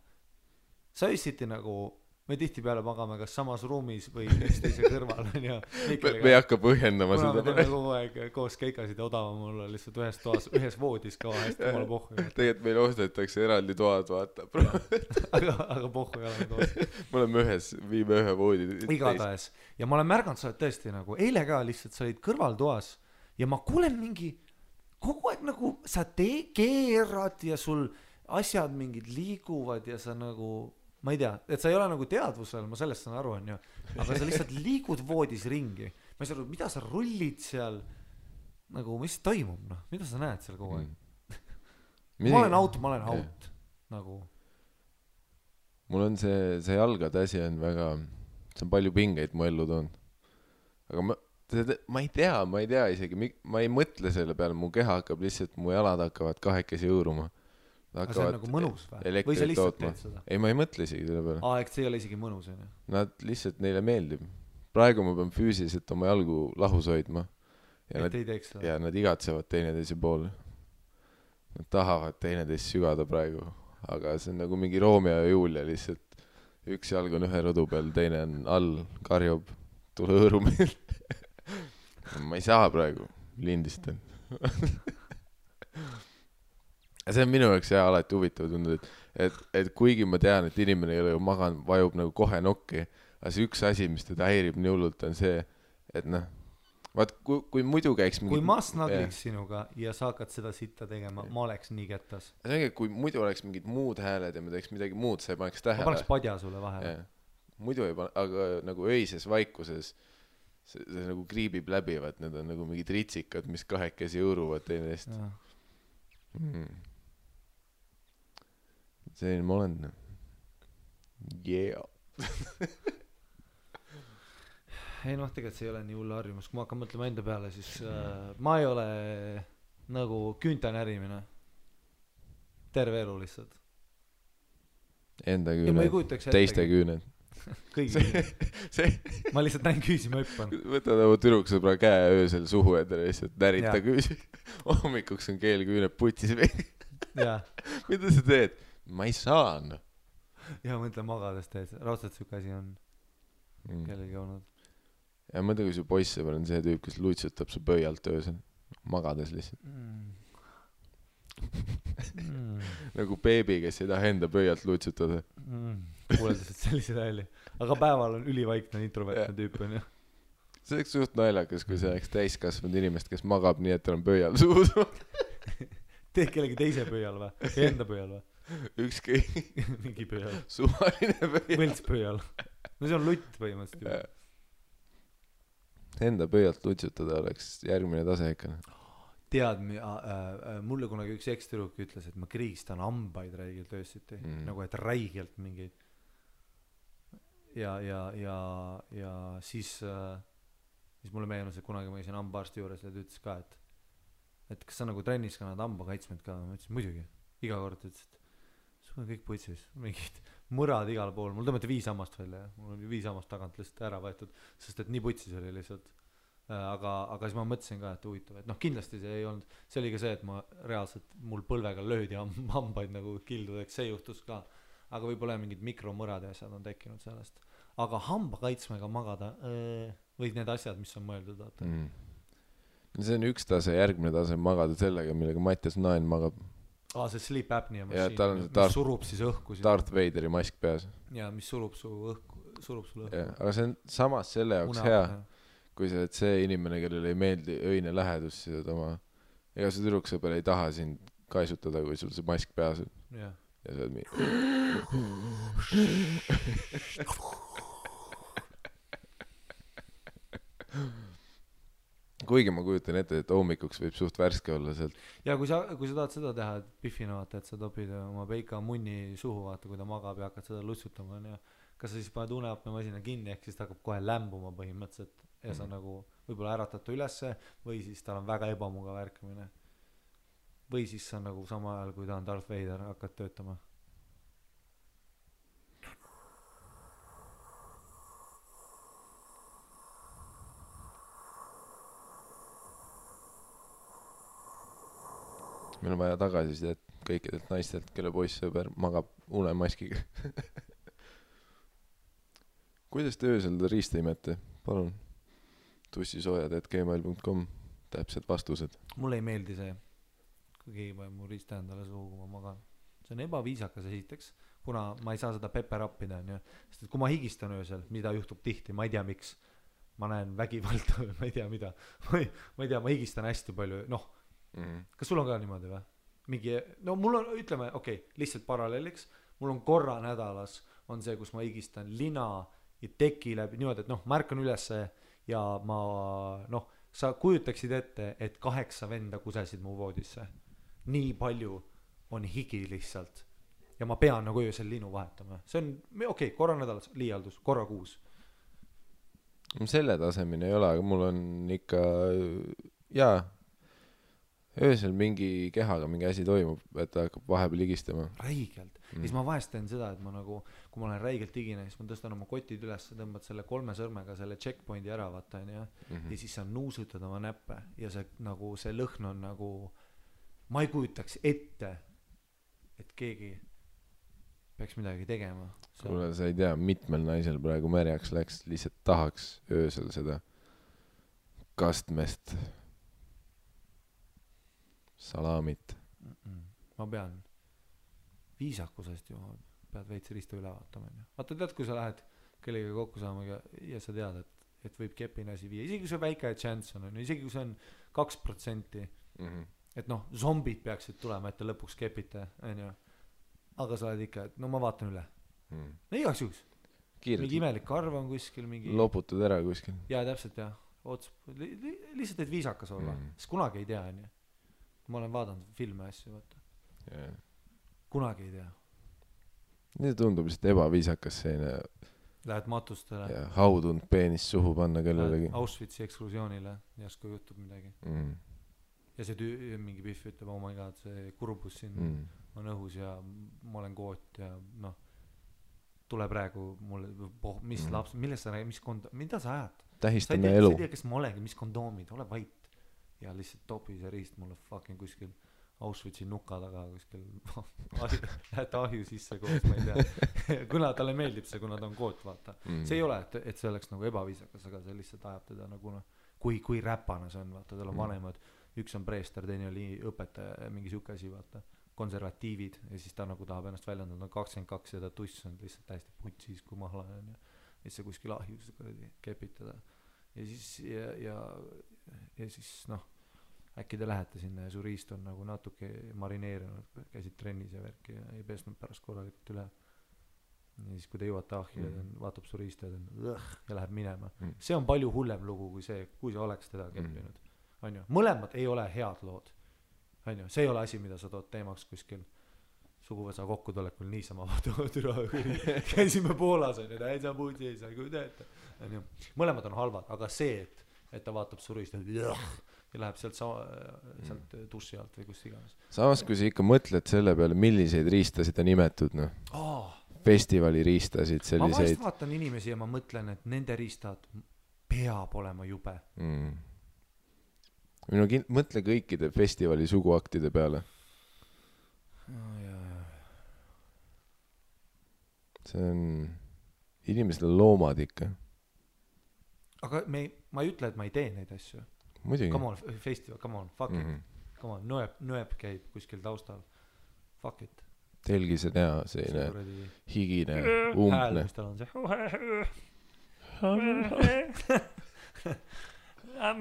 Sa öösiti nagu... Me tihti peale magame kas samas ruumis või üksteise kõrval. Me ei hakka põhjendama seda. Kuna me teeme kogu aeg koos keikasid ja odavam olla lihtsalt ühes toas, ühes voodis ka hästi omale pohhu. Tegelikult meil ostetakse eraldi toad, vaata. aga pohhu ei ole toas. Me oleme viime ühe voodi. Igatahes. Ja ma olen märganud, sa oled tõesti nagu, eile ka lihtsalt sa olid kõrvaltoas ja ma kuulen mingi, kogu aeg nagu sa keerad ja sul asjad mingid liiguvad ja sa nagu... Ma ei tea, et sa ei ole nagu teadvusel, ma sellest saan aru, on ju. Aga sa lihtsalt liigud voodis ringi. Ma ei saa aru, mida sa rullid seal, nagu, mis toimub, noh? Mida sa näed seal kogu aeg? Ma olen out. Nagu. Mul on see jalgade asi on väga, see on palju pingeid mu ellu toon. Aga ma ei tea isegi, ma ei mõtle selle peale, mu keha hakkab lihtsalt, mu jalad hakkavad kahekesi õõruma. Aga see on nagu mõnus või? Või sa lihtsalt teed seda? Ei, ma ei mõtle isegi selle peale. Eks see ei ole isegi mõnus, on ju? Nad lihtsalt neile meeldib. Praegu ma pean füüsiliselt oma jalgu lahus hoidma. Et ei teeks seda? Ja nad igatsevad teineteise poole. Nad tahavad teineteist sügada praegu. Aga see on nagu mingi Romeo ja Julia lihtsalt. Üks jalg on ühe rõdu peal, teine on all, karjub, tule hõõru meil. Ma ei saa praegu, lindistan. See on minu jaoks alati huvitav tundnud, et kuigi ma tean, et inimene ei ole ju maganud, vajub nagu kohe nokki, aga see üks asi, mis teda häirib nii hullult, on see, et noh, vaat kui muidu käiks kui ma snagliks sinuga ja sa hakkad seda sitta tegema, ma oleks nii kettas. See ongi, kui muidu oleks mingid muud hääled ja me teeks midagi muud, sa ei paneks tähele. Ma paneks padja sulle vahele. Muidu ei pane, aga nagu öises vaikuses see nagu kriibib läbi, vaat need on nagu mingid ritsikad, mis kahekesi õuruvad teineteist. Selline ma olen. Yeah. Ei noh, tegelikult see ei ole nii hull harjumus. Kui ma hakkan mõtlema enda peale, siis ma ei ole nagu küünta närimine. Terve elu lihtsalt. Enda küüned, teiste küüned. Kõigi ma lihtsalt näin küüsi, ma hüppan. Võtad oma tüdruksõbra käe öösel suhu endale lihtsalt närita küüsi. Hommikuks on keel küüned putis või. Mida sa teed? Ma ei saa. Ja mõtle magades teed. Raudselt süük asi on kellelgi olnud. Ja mõtle, kui su poissõber on see tüüp, kes luitsutab su pöialt öösel. Magades lihtsalt. Nagu beebi, kes ei taha enda pöialt luitsutada. Kuuleldused sellise välja. Aga päeval on ülivaikne introvertne tüüp on ju. See oleks suht naljakas, kui see oleks täiskasvanud inimest, kes magab nii, et tal on pöial suus. Teed kellegi teise pöial või? Enda pöial või? Ükski. Mingi pöial. Suvaline pöial. Võlts pöial. No see on lutt põhimõtteliselt juba. Enda pöialt lutsutada oleks järgmine tase ikka. Tead, mulle kunagi üks ekstüruk ütles, et ma kriistan hambaid räigelt öösiti. Nagu et räigelt mingeid. Ja siis mulle meenus, et kunagi ma käisin hambaarsti juures ja ta ütles ka, et kas sa nagu trennis kannad hambakaitsmed ka? Ma ütlesin, muidugi. Iga kord ütles, et sul on kõik putsis. Mingid murad igal pool. Mul tõmmati 5 hammast välja. Mul on 5 hammast tagant lihtsalt ära võetud, sest et nii putsis oli lihtsalt. Aga siis ma mõtlesin ka, et huvitav, et noh, kindlasti see ei olnud, see oli ka see, et ma reaalselt mul põlvega löödi hambaid nagu kildudeks, see juhtus ka, aga võib-olla mingid mikromõrad ja asjad on tekkinud sellest, aga hambakaitsmega magada või need asjad, mis on mõeldud vaata. See on üks tase, järgmine tase magada sellega, millega Mattias Naen magab. See sleep apnea mašiin, mis surub siis õhku Darth Vaderi mask peas ja mis surub sulle õhku aga see on samas selle jaoks hea kui see inimene, kellel ei meeldi öine lähedus, siis ega see tüdruksõber ei taha sind kaisutada, kui sul see mask peas on. Ja see on kuigi ma kujutan ette, et hommikuks võib suht värske olla sealt. Ja kui sa tahad seda teha, et Biffina vaata, et sa topid oma peika munni suhu vaata, kui ta magab ja hakkad seda lutsutama ja kas sa siis paned uneapnemasina kinni, ehk siis ta hakkab kohe lämbuma põhimõtteliselt ja sa nagu võib-olla äratad ta ülesse või siis tal on väga ebamugav ärkamine või siis sa nagu sama ajal, kui ta on Darth Vader, hakkad töötama. Meil on vaja tagasisidet kõikidelt naistelt, kelle poissõber magab unemaskiga. Kuidas te öösel riista imete? Palun. tussisoojad@gmail.com täpsed vastused. Mulle ei meeldi see, kui keegi paneb mu riista endale suhu, kui ma magan. See on ebaviisakas esiteks, kuna ma ei saa seda peperappida, sest et kui ma higistan öösel, mida juhtub tihti, ma ei tea miks, ma näen vägivalda või ma ei tea mida, ma ei tea, ma higistan hästi palju, kas sul on ka niimoodi või? No mul on, ütleme, lihtsalt paralleeliks, mul on korra nädalas on see, kus ma higistan lina ja teki läbi, niimoodi, et ma ärkan ülesse ja ma, sa kujutaksid ette, et 8 venda kusesid mu voodisse. Nii palju on higi lihtsalt. Ja ma pean nagu öösel linu vahetama. See on, korra nädalas liialdus, korra kuus. Selle tasemine ei ole, aga mul on ikka, öösel mingi kehaga mingi asi toimub, et ta hakkab vahepeal higistama. Räigelt. Siis ma vahest teen seda, et ma nagu, kui ma olen räigelt higine, siis ma tõstan oma kotid üles, tõmbad selle 3 sõrmega selle checkpointi ära vaata, ja siis sa nuusutad oma näppe ja see, nagu, see lõhn on nagu, ma ei kujutaks ette, et keegi peaks midagi tegema. Kuule, sa ei tea, mitmel naisel praegu märjaks läks, lihtsalt tahaks öösel seda kastmest salamit. Ma pean viisakusest ju pead veits riista üle vaatama. Vaata, tead, kui sa lähed kellegagi kokku saama ja sa tead, et võib kepine asi viia, isegi kui see väike chance on, isegi kui see on 2%, et noh, zombid peaksid tulema, et te lõpuks kepite, onju. Aga sa oled ikka, et no ma vaatan üle. No igaks juhuks. Mingi imelik karv on kuskil, mingi... Loputud ära kuskil. Jaa, täpselt, jah. Lihtsalt, et viisakas olla. Sest kunagi ei tea, onju. Ma olen vaadanud filme asju, vaata. Yeah. Kunagi ei tea. See tundub lihtsalt ebaviisakas selline... Lähed matustele. Ja haudunud peenis suhu panna kellelegi. Lähed Auschwitzi eksklusioonile, järsku juhtub midagi. Ja see mingi pihv ütleb, oh my god, see kurbus siin on õhus ja ma olen koot ja noh, tule praegu mulle, mis laps, millest sa räägid, mida sa ajad? Tähistame elu. Sa ei tea, kes ma olengi, mis kondoomid, ole vait. Ja lihtsalt topi see riist mulle fucking kuskil Auschwitzi nuka taga kuskil lähete ahju sisse koos, ma ei tea. Kuna talle meeldib see, kuna ta on koot, vaata. See ei ole, et see oleks nagu ebaviisakas, aga see lihtsalt ajab teda nagu noh, kui räpana see on, vaata, tal on vanemad, üks on preester, teine oli õpetaja, mingi siuke asi, vaata, konservatiivid ja siis ta nagu tahab ennast väljendada, on 22 ja ta tuss on lihtsalt täiesti putsis, kui mahla on ja siis see kuskil ahjus kepitada ja siis ja siis noh, äkki te lähete sinna ja su riist on nagu natuke marineerinud, käisid trennis ja värki ja ei pesnud pärast korralikult üle ja siis kui te jõuate ahju ja vaatab su riist ja läheb minema. See on palju hullem lugu kui see, kui sa oleks teda keppinud. Onju. Mõlemad ei ole head lood. Onju. See ei ole asi, mida sa tood teemaks kuskil suguvõsa kokkutulekul niisama käisime Poolas onju, täitsa putsi ei saa kuideta. Mõlemad on halvad, aga see, et ta vaatab su riist ja läheb sealt dussi alt või kust iganes. Samas, kui sa ikka mõtled selle peale, milliseid riistasid on imetud, noh. Festivali riistasid selliseid. Ma vahest vaatan inimesi ja ma mõtlen, et nende riistad peab olema jube. Mõtle kõikide festivali suguaktide peale. See on inimesed on loomad ikka. Aga ma ei ütle, et ma ei tee neid asju. Muidugi. Come on, festival, come on, fuck it. Come on, nõeb käib kuskil taustal. Fuck it. Telgis on hea, selline higine, umbne. Hääl, mis tal on see. I've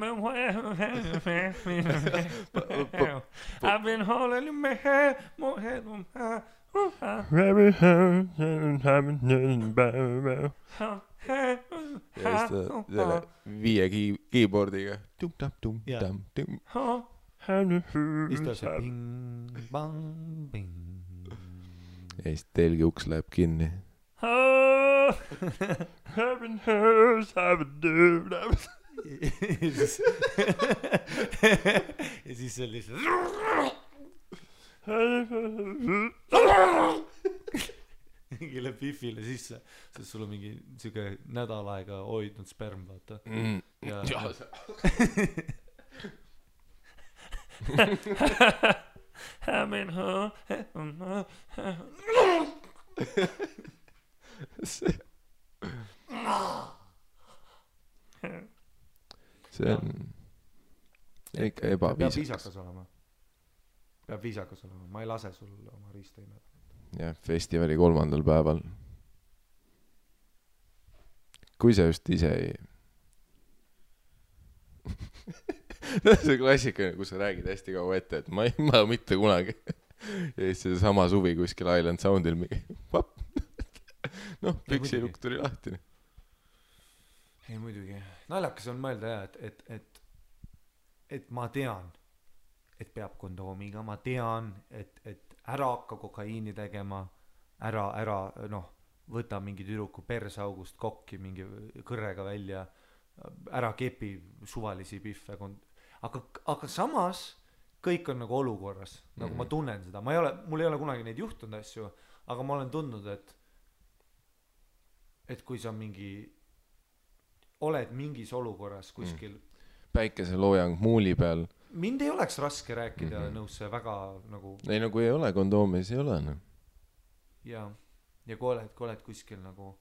been holding your man, more head on high. Ja siis selle 5 keyboardiga. Siis ta see ping, bang, ping. Ja siis telgi uks läheb kinni. Ja siis see lihtsalt mingile pifile sisse, sest sul on mingi siuke nädal aega hoidnud sperm, vaata. Ja see on ikka ebaviisakas. Peab viisakas olema. Ma ei lase sul oma riista imeda. Jah, festivali 3. päeval. Kui sa just ise ei... see klassikaline, kus sa räägid hästi kaua ette, et ma mitte kunagi. Ja siis see sama suvi kuskil Island Soundil mingi vapp. Noh, püksilukk tuli lahti. Ei muidugi. Naljakas on mõelda jah, et ma tean, et peab kondoomiga, ma tean, et ära hakka kokaiini tegema, ära noh, võta mingi tüdruku persaugust kokki mingi kõrrega välja, ära kepi suvalisi pihve, aga samas kõik on nagu olukorras, nagu ma tunnen seda, mul ei ole kunagi neid juhtunud asju, aga ma olen tundnud, et kui sa oled mingis olukorras kuskil päikeseloojang muuli peal. Mind ei oleks raske rääkida nõusse väga nagu... Ei, no kui ei ole kondoomi, siis ei ole. No. Ja kui oled kuskil nagu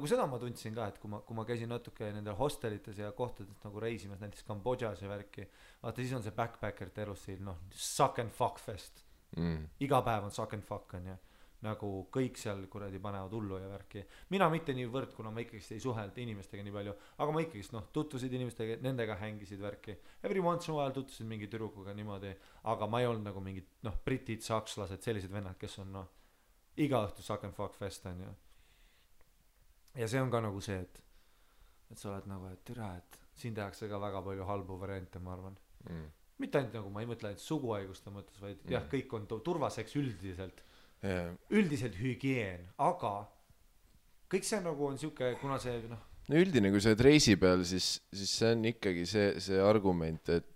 seda ma tundsin ka, et kui ma käisin natuke nendel hostelites ja kohtades nagu reisimas, näiteks Kambodžas ja värki, vaata siis on see backpackerite elustiil, noh, suck and fuck fest. Iga päev on suck and fuck, on ja nagu kõik seal kuradi panevad hullu ja värki. Mina mitte niivõrd, kuna ma ikkagi ei suhelnud inimestega nii palju, aga ma ikkagi tutvusid inimestega, nendega hängisid värki. Every once in a while tutvusid mingi tüdrukuga niimoodi, aga ma ei olnud nagu mingid britid, sakslased, sellised vennad, kes on iga õhtu suck and fuck fest on ju. Ja see on ka nagu see, et sa oled nagu, et türa, et siin tehakse ka väga palju halbu variante, ma arvan. Mitte ainult nagu, ma ei mõtle ainult suguhaiguste mõttes, vaid jah, kõik on turvaseks üldiselt. Üldiselt hügieen, aga kõik see nagu on siuke, kuna see no üldine, kui sa oled reisi peal, siis see on ikkagi see argument, et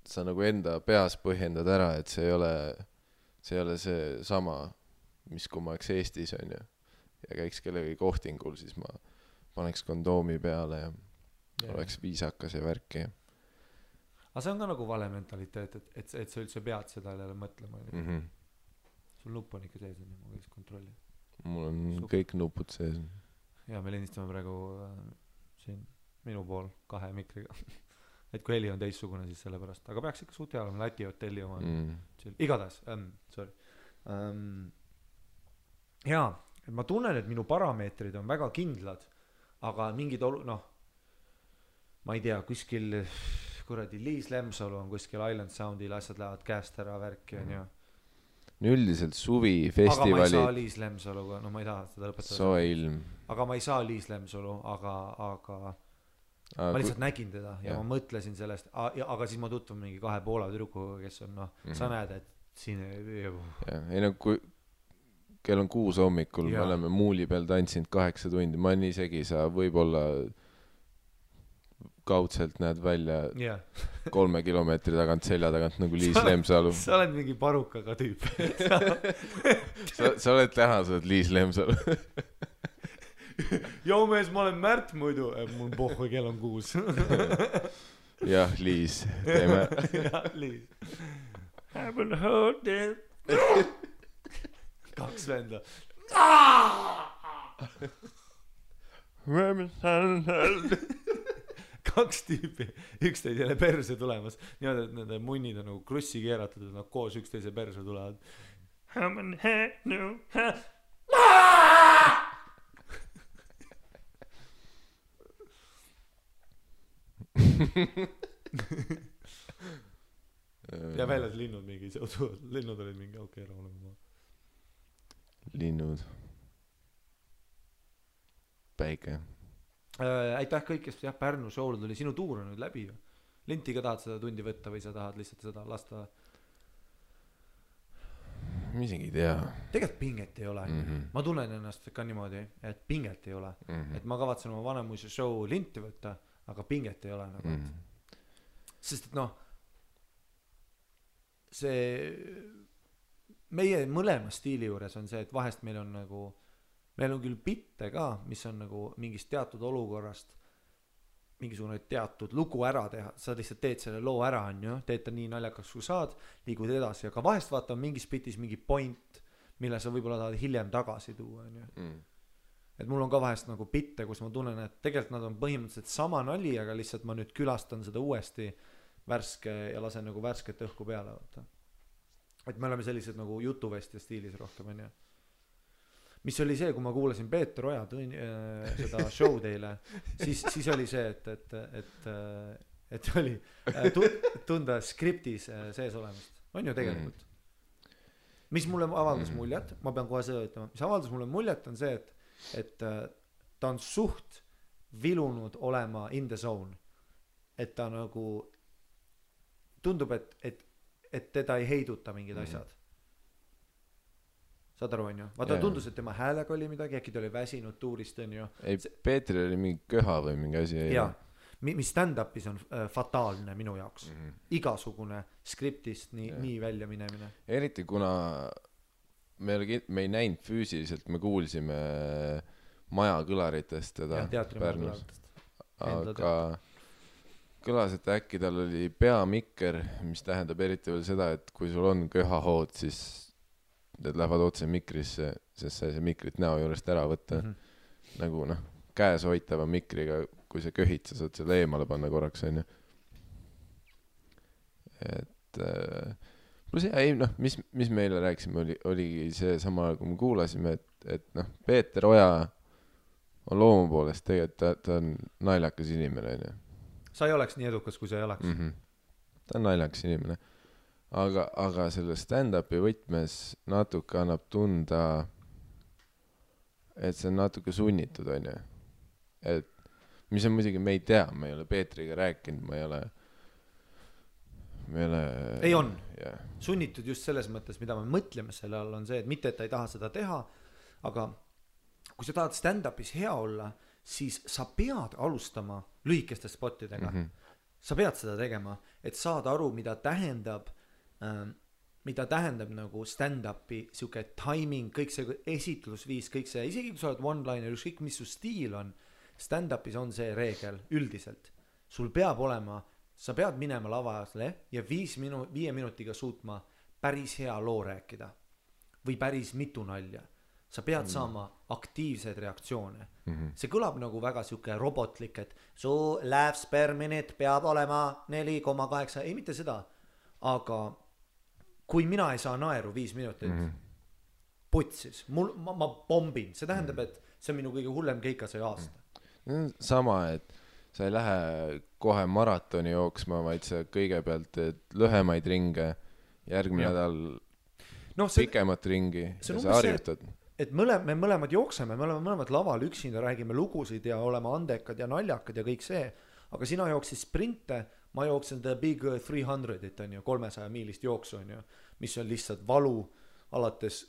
sa nagu enda peas põhjendad ära, et see ei ole see sama, mis kui ma oleks Eestis on ju ja käiks kellegi kohtingul, siis ma paneks kondoomi peale ja oleks viisakas ja värki. Aga see on ka nagu vale mentaliteet, et sa üldse pead seda jälle mõtlema. Sul nupp on ikka sees, ma võiks kontrolli. Mul on kõik nupud sees. Ja me lindistame praegu siin minu pool 2 mikriga. Et kui heli on teissugune, siis selle pärast. Aga peaks ikka suht hea olema Läti hotelli oma. Igatahes, sorry. Jaa, et ma tunnen, et minu parameetrid on väga kindlad, aga mingid ma ei tea, kuskil kuradi Liis Lemsalu on kuskil Island Soundil, asjad lähevad käest ära värki on ju. Üldiselt suvi festivali. Aga ma ei saa Liis Lemsaluga, ma ei taha seda lõpetada. Soe ilm. Aga ma ei saa Liis Lemsalu, aga ma lihtsalt nägin teda ja ma mõtlesin sellest, aga siis ma tutvun mingi 2 Poola tüdrukuga, kes on sa näed, et siin ei kui kell on 6 hommikul, me oleme muuli peal tantsinud 8 tundi, ma nii isegi sa võib-olla kaudselt näed välja 3 kilomeetri tagant selja tagant nagu Liis Lemsalu. Sa oled mingi parukaga tüüp. sa oled täna, sa oled Liis Lemsalu. Joo mees, ma olen Märt muidu. Mul pohhu, kell on 6. Jah, Liis. Teeme. Jah, Liis. I will hold it. 2 venda. Kaks tüüpi, üksteisele perse tulemas. Niimoodi, et nende munnid on nagu krussi keeratud ja nad koos üksteise perse tulevad. Ja väljas linnud mingi, linnud olid mingi, okei, rahulema. Linnud. Päike. Aitäh kõik, kes Pärnu show'l tuli. Sinu tuur on nüüd läbi ju. Linti ka tahad seda tundi võtta või sa tahad lihtsalt seda lasta? Ma isegi ei tea. Tegelikult pinget ei ole. Ma tunnen ennast ka niimoodi, et pinget ei ole. Et ma kavatsen oma Vanemuise show linti võtta, aga pinget ei ole nagu. Sest et see meie mõlema stiili juures on see, et vahest meil on nagu meil on küll bitte ka, mis on nagu mingist teatud olukorrast mingisugune teatud lugu ära teha. Sa lihtsalt teed selle loo ära, on ju, teed ta nii naljakaks kui saad, liigud edasi, aga vahest vaata mingis bitis mingi point, mille sa võib-olla tahad hiljem tagasi tuua, on ju. Et mul on ka vahest nagu bitte, kus ma tunnen, et tegelikult nad on põhimõtteliselt sama nali, aga lihtsalt ma nüüd külastan seda uuesti värske ja lasen nagu värsket õhku peale. Vaata. Et me oleme sellised nagu jutuvestja stiilis rohkem, on ju. Mis oli see, kui ma kuulasin Peeter Oja seda show teile, siis oli see, et oli tunda skriptis sees olemist. On ju tegelikult. Mis mulle avaldas muljet, ma pean kohe seda ütlema, mis avaldas mulle muljet on see, et ta on suht vilunud olema in the zone. Et ta nagu tundub, et teda ei heiduta mingid asjad. Saad aru, on ju? Vaata tundus, et tema häälega oli midagi, äkki ta oli väsinud tuurist, on ju. Ei, Peetril oli mingi köha või mingi asi. Jaa, mis stand-upis on fataalne minu jaoks. Igasugune skriptist nii välja minemine. Eriti kuna me ei näinud füüsiliselt, me kuulsime maja kõlaritest teda Pärnus. Aga kõlas, et äkki tal oli peamikker, mis tähendab eriti veel seda, et kui sul on köhahood, siis need lähevad otse mikrisse, sest sa ei saa mikrit näo juurest ära võtta. Nagu käes hoitava mikriga, kui sa köhid, sa saad selle eemale panna korraks, on ju. Et pluss ei noh, mis meile rääkisime, oligi see sama, kui me kuulasime, et noh, Peeter Oja on loomu poolest tegelikult, ta on naljakas inimene, on ju. Sa ei oleks nii edukas, kui sa ei oleks. Ta on naljakas inimene. Aga selle stand-upi võtmes natuke annab tunda, et see on natuke sunnitud, on ju. Et mis on muidugi, me ei tea, me ei ole Peetriga rääkinud, me ei ole ei on sunnitud just selles mõttes, mida me mõtleme selle all on see, et mitte, et ta ei taha seda teha, aga kui sa tahad stand-upis hea olla, siis sa pead alustama lühikeste spottidega. Sa pead seda tegema, et saada aru, mida tähendab nagu stand-upi siuke timing, kõik see esitlusviis, kõik see, isegi kui sa oled one-liner, ükskõik mis su stiil on, stand-upis on see reegel üldiselt. Sul peab olema, sa pead minema lavasele ja 5 minutiga suutma päris hea loo rääkida või päris mitu nalja. Sa pead saama aktiivseid reaktsioone. See kõlab nagu väga siuke robotlik, et su laughs per minute peab olema 4,8, ei mitte seda, aga kui mina ei saa naeru 5 minutit, putsis, ma bombin, see tähendab, et see on minu kõige hullem keika see aasta. Sama, et sa ei lähe kohe maratoni jooksma, vaid sa kõigepealt teed lühemaid ringe, järgmine nädal pikemat ringi ja sa harjutad. Et me mõlemad jookseme, me oleme mõlemad laval üksinda, räägime lugusid ja oleme andekad ja naljakad ja kõik see, aga sina jooksid sprinte, ma jooksen the big 300-it on ju, 300 miilist jooksu on ju, mis on lihtsalt valu alates,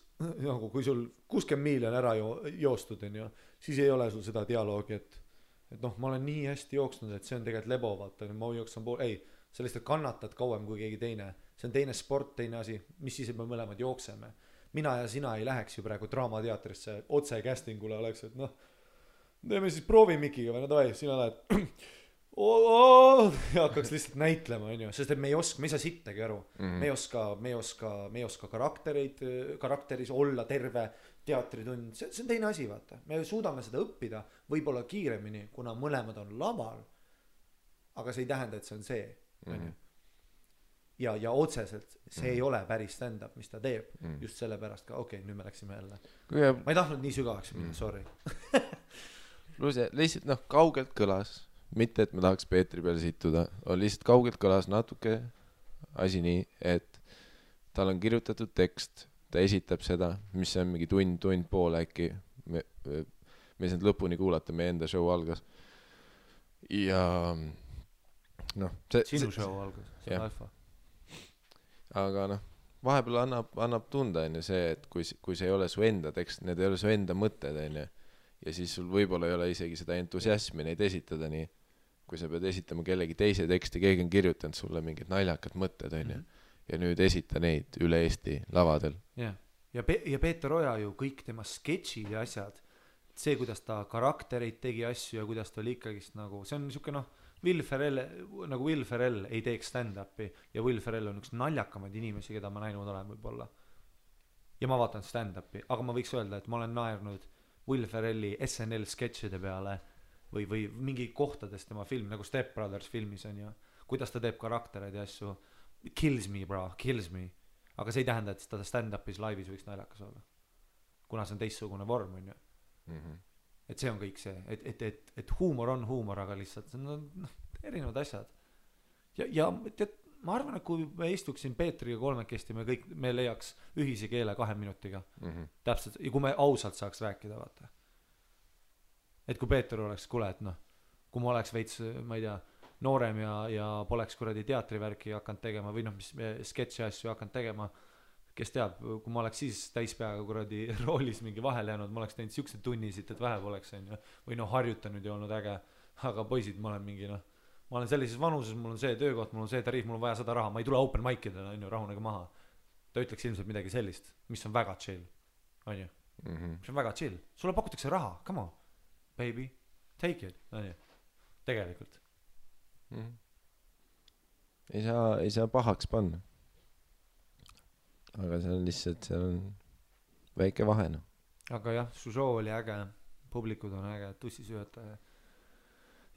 nagu kui sul 60 miili on ära joostud on ju, siis ei ole sul seda dialoogi, et noh, ma olen nii hästi jooksnud, et see on tegelikult lebo, vaata, ma jooksen ei, sa lihtsalt kannatad kauem kui keegi teine, see on teine sport, teine asi, mis siis, et me mõlemad jookseme. Mina ja sina ei läheks ju praegu draamateatrisse otse castingule, oleks, et noh, teeme siis proovimikiga või no davai, sina lähed ja hakkaks lihtsalt näitlema, on ju, sest et me ei saa sittagi aru, me ei oska karakteris olla terve teatritund, see on teine asi, vaata, me suudame seda õppida võib-olla kiiremini, kuna mõlemad on laval, aga see ei tähenda, et see on see, on ju. Ja otseselt see ei ole päris stand-up, mis ta teeb, just sellepärast ka, okei, nüüd me läksime jälle. Ma ei tahtnud nii sügavaks minna, sorry. Lihtsalt noh, kaugelt kõlas, mitte et me tahaks Peetri peale situda, lihtsalt kaugelt kõlas natuke asi nii, et tal on kirjutatud tekst, ta esitab seda, mis on mingi tund pool äkki, me ei saanud lõpuni kuulata, meie enda show algas. Ja noh, sinu show algas, see on alfa. Aga noh, vahepeal annab tunda enne see, et kui see ei ole su enda tekst, need ei ole su enda mõtted enne, ja siis sul võib-olla ei ole isegi seda entusiasmi neid esitada nii, kui sa pead esitama kellegi teise teksti, keegi on kirjutanud sulle mingid naljakad mõtted enne, ja nüüd esita neid üle Eesti lavadel. Ja Peeter Oja ju kõik tema sketšid ja asjad, see, kuidas ta karaktereid tegi asju ja kuidas ta oli ikkagist nagu, see on niisugune noh, Will Ferrell ei teeks stand-upi ja Will Ferrell on üks naljakamaid inimesi, keda ma näinud olen võib-olla. Ja ma vaatan stand-upi, aga ma võiks öelda, et ma olen naernud Will Ferrelli SNL sketšide peale või mingi kohtades tema film, nagu Step Brothers filmis on ju, kuidas ta teeb karaktereid ja asju, kills me bro, kills me, aga see ei tähenda, et ta stand-upis laivis võiks naljakas olla, kuna see on teistsugune vorm on ju. Et see on kõik see, et huumor on huumor, aga lihtsalt see on erinevad asjad. Ja tead, ma arvan, et kui me istuksin Peetriga kolmekesti, me leiaks ühise keele 2 minutiga. Täpselt, ja kui me ausalt saaks rääkida, vaata. Et kui Peeter oleks, kuule, et noh, kui ma oleks veits, ma ei tea, noorem ja poleks kuradi teatrivärki hakanud tegema või noh, mis sketši asju hakanud tegema, kes teab, kui ma oleks siis täispeaga kuradi roolis mingi vahele jäänud, ma oleks teinud siuksed tunnisid, et vähe poleks on ju, või noh, harjutanud ja olnud äge, aga poisid, ma olen mingi noh, ma olen sellises vanuses, mul on see töökoht, mul on see tariif, mul on vaja 100 raha, ma ei tule open mic'idele, on ju, rahunege maha. Ta ütleks ilmselt midagi sellist, mis on väga chill, on ju, mis on väga chill, sulle pakutakse raha, come on, baby, take it, on ju, tegelikult. Ei saa pahaks panna. Aga see on lihtsalt, seal on väike vahe, noh. Aga jah, su show oli äge, publikud on äge, tussisüöta ja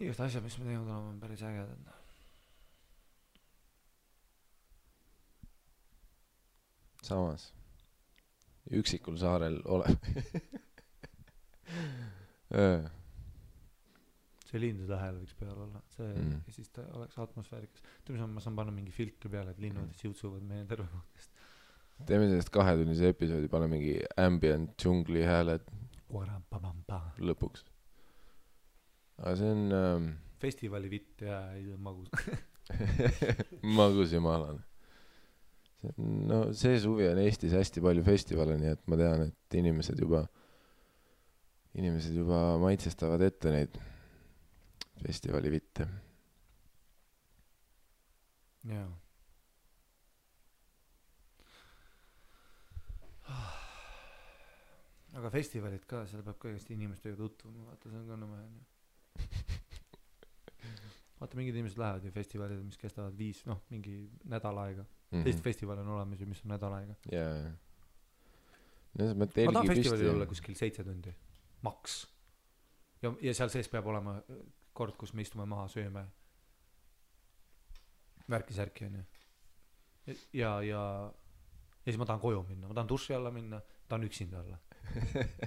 igast asjad, mis me teinud oleme, on päris ägedad. samas üksikul saarel ole see lindude hääl võiks peal olla, see ja siis ta oleks atmosfäärikas. ma saan panna mingi filtri peale, et linnud siutsuvad meie tervekohtest. teeme sellest 2-tunnise episoodi, pane mingi ambient džungli hääled lõpuks. aga see on festivali vitt ja magus magus ja maalane. No see suvi on Eestis hästi palju festivale, nii et ma tean, et inimesed juba maitsestavad ette neid festivali vitte. jaa. aga festivalid ka, seal peab kõigest inimestega tutvuma, vaata see on ka nõme on ju. vaata mingid inimesed lähevad ju festivalid, mis kestavad 5, mingi nädal aega. Teist festivali on olemas ju, mis on nädal aega. jaa. ma tahan festivalil olla kuskil 7 tundi maks ja seal sees peab olema kord, kus me istume maha, sööme värki-särki on ju ja siis ma tahan koju minna, ma tahan duši alla minna, tahan üksinda olla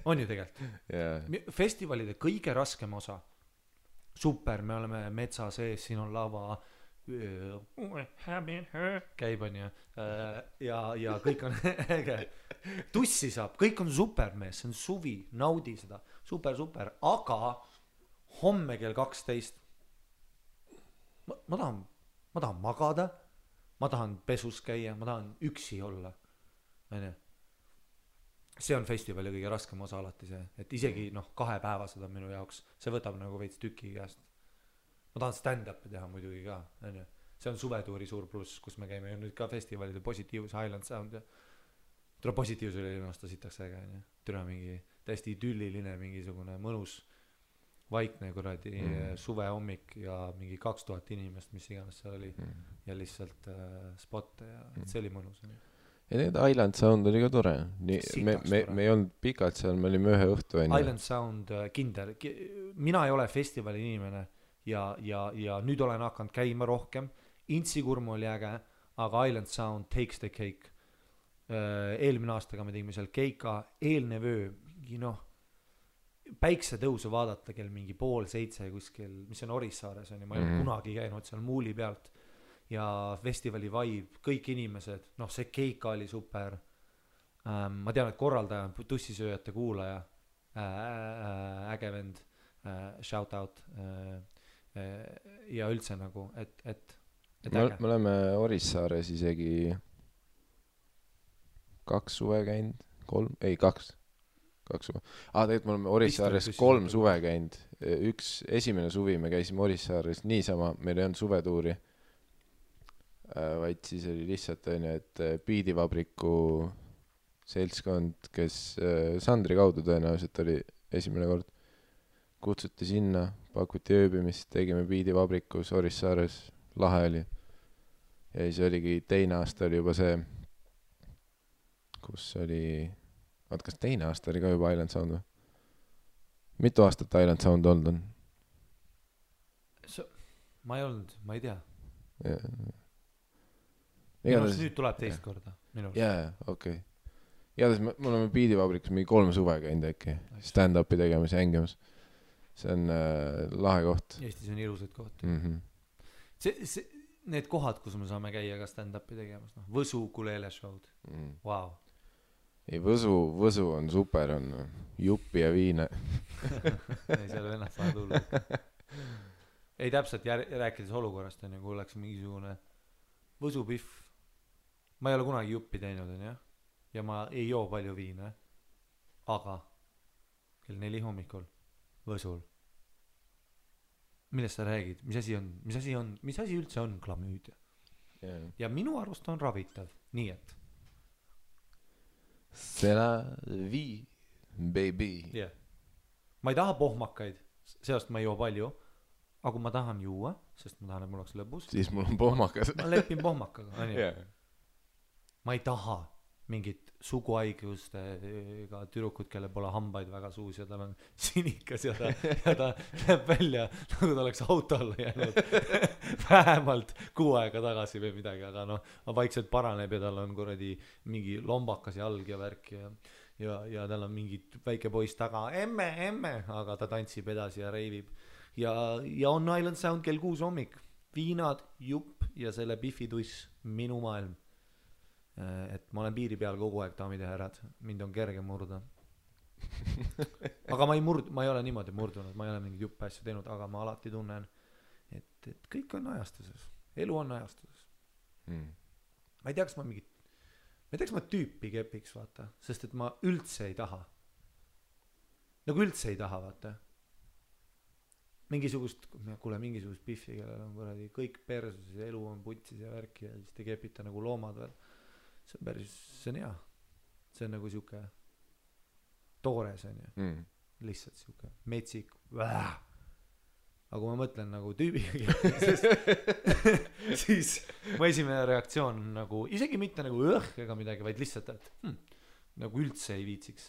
on ju tegelikult festivalide kõige raskem osa super, me oleme metsa sees, siin on lava käib on ju ja kõik on äge tussi saab, kõik on super mees, see on suvi, naudi seda super, aga homme kell 12 ma tahan magada, ma tahan pesus käia, ma tahan üksi olla on ju. See on festivali kõige raskem osa alati see, et isegi 2-päevased on minu jaoks, see võtab nagu veits tüki käest. Ma tahan stand-up'i teha muidugi ka, on ju. See on suvetuuri suur pluss, kus me käime ju nüüd ka festivalide Positiivus, Highland Sound ja tule Positiivus oli linnasta sitaks äge, on ju. Tule mingi täiesti idülliline, mingisugune mõnus vaikne kuradi suve hommik ja mingi 2000 inimest, mis iganes seal oli ja lihtsalt spotte ja see oli mõnus. Ja need Highland Sound oli ka tore. Me ei olnud pikalt seal, me olime ühe õhtu. Highland Sound kindel. Mina ei ole festivali inimene ja nüüd olen hakanud käima rohkem. Intsikurm oli äge, aga Highland Sound takes the cake. Eelmine aastaga me tegime seal keika, eelne vöö, mingi päiksetõusu vaadata kell mingi 6:30 kuskil, mis on Orissaares on ja ma ei ole kunagi käinud seal muuli pealt ja festivali vibe, kõik inimesed, see keika oli super. Ma tean, et korraldaja on tussisööjate kuulaja, äge vend, shout out ja üldse nagu, et me oleme Orissaares isegi 2 suve käinud, 2 suve. Tegelikult me oleme Orissaares 3 suve käinud. Esimene suvi me käisime Orissaares niisama, meil ei olnud suvetuuri, vaid siis oli lihtsalt et Biidivabriku seltskond, kes Sandri kaudu tõenäoliselt oli esimene kord, kutsuti sinna, pakuti ööbimist, tegime Biidivabrikus Orissaares, lahe oli. Ja siis oligi teine aasta oli juba see, kus oli, kas teine aasta oli ka juba Island Sound või? Mitu aastat Island Sound olnud on? Ma ei olnud, ma ei tea. Igatahes nüüd tuleb teist korda. Jaa, okei. Igatahes me oleme Biidivabrikus mingi 3 suve käinud äkki. Stand-upi tegemas ja hängimas. See on lahe koht. Eestis on ilusad kohti. Need kohad, kus me saame käia ka stand-upi tegemas. Võsu Kulele show'd. Wow. Ei, Võsu on super, on juppi ja viine. Ei, seal ennast saa tulla. Ei, täpselt rääkides olukorrast on ju, kui oleks mingisugune Võsu pihv. Ma ei ole kunagi juppi teinud, on ju. Ja ma ei joo palju viine. Aga kell 4 hommikul Võsul. Millest sa räägid? Mis asi üldse on klamüüdia? Ja minu arust on ravitav. Nii et c'est la vie, baby. Yeah. Ma ei taha pohmakaid, sellest ma ei joo palju, aga kui ma tahan juua, sest ma tahan, et mul oleks lõbus, siis mul on pohmakas. Ma lepin pohmakaga. Yeah. Ma ei taha mingid suguhaigustega tüdrukud, kellel pole hambaid väga suus ja tal on sinikas ja ta näeb välja nagu ta oleks auto alla jäänud vähemalt 6 aega tagasi või midagi, aga noh, vaikselt paraneb ja tal on kuradi mingi lombakas jalg ja värk ja tal on mingi väike poiss taga, emme, aga ta tantsib edasi ja reivib ja on Island Sound kell 6 hommik, viinad, jupp ja selle Biffi-tuss, minu maailm. Et ma olen piiri peal kogu aeg, daamid ja härrad, mind on kerge murda. Aga ma ei ole niimoodi murdunud, ma ei ole mingit juppe asju teinud, aga ma alati tunnen, et kõik on ajastuses, elu on ajastuses. Ma ei tea, kas ma tüüpi kepiks, vaata, sest et ma üldse ei taha, vaata. Mingisugust Biffi, kellel on kuradi kõik persus ja elu on putsis ja värki ja siis te kepite nagu loomad veel. See on hea. See on nagu siuke toores on ju. Lihtsalt siuke metsik. Aga kui ma mõtlen nagu tüübiga, siis mu esimene reaktsioon on nagu, isegi mitte nagu ega midagi, vaid lihtsalt, et nagu üldse ei viitsiks.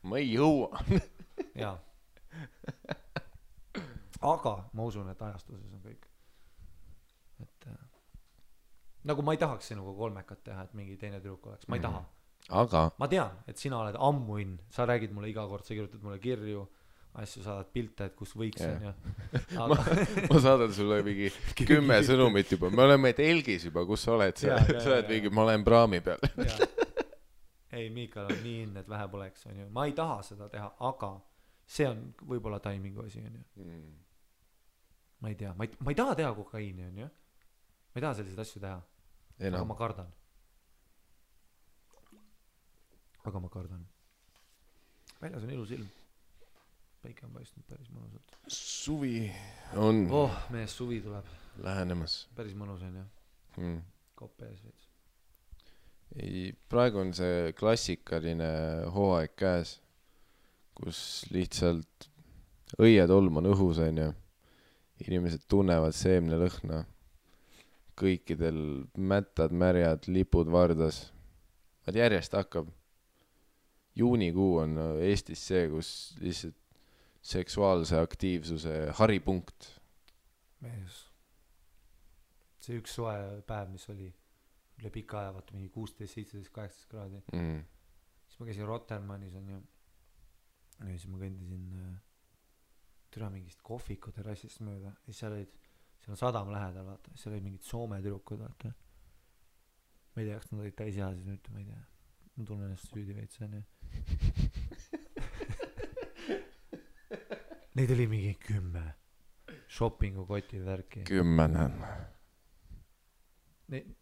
Ma ei jõua. Jaa. Aga ma usun, et ajastuses on kõik. Et nagu ma ei tahaks sinuga kolmekat teha, et mingi teine tüdruk oleks, ma ei taha. Aga ma tean, et sina oled ammuinn, sa räägid mulle iga kord, sa kirjutad mulle kirju, asju, saadad pilte, et kus võiks on ja ma saadan sulle mingi 10 sõnumit juba, me oleme telgis juba, kus sa oled, sa oled mingi, ma olen praami peal. Ei, Miikal on nii inne, et vähe poleks on ju. Ma ei taha seda teha, aga see on võib-olla taimingu asi on ju. Ma ei tea, ma ei taha teha kokaiini on ju. Ma ei taha selliseid asju teha. Aga ma kardan. Väljas on ilus ilm. Päike on paistnud päris mõnusalt. Suvi on mees suvi tuleb lähenemas. Päris mõnus on ju. Kopp ees veits. Ei, praegu on see klassikaline hooaeg käes, kus lihtsalt õietolm on õhus on ju. Inimesed tunnevad seemne lõhna. Kõikidel mättad, märjad, lipud vardas. Vaid järjest hakkab. Juunikuu on Eestis see, kus lihtsalt seksuaalse aktiivsuse haripunkt. Mees. See üks soe päev, mis oli üle pika aja, vaata mingi 16, 17, 18 kraadi. Siis ma käisin Rotermannis on ju. Ja siis ma kõndisin türa mingist kohviku terrassist mööda. Ja seal on sadam lähedal, vaata. Seal oli mingid Soome tüdrukud, vaata. Ma ei tea, kas nad olid täisjaasid nüüd, ma ei tea. Ma tunnen ennast süüdi veits, on ju. Neid oli mingi 10 shoppingu koti värki. 10 on.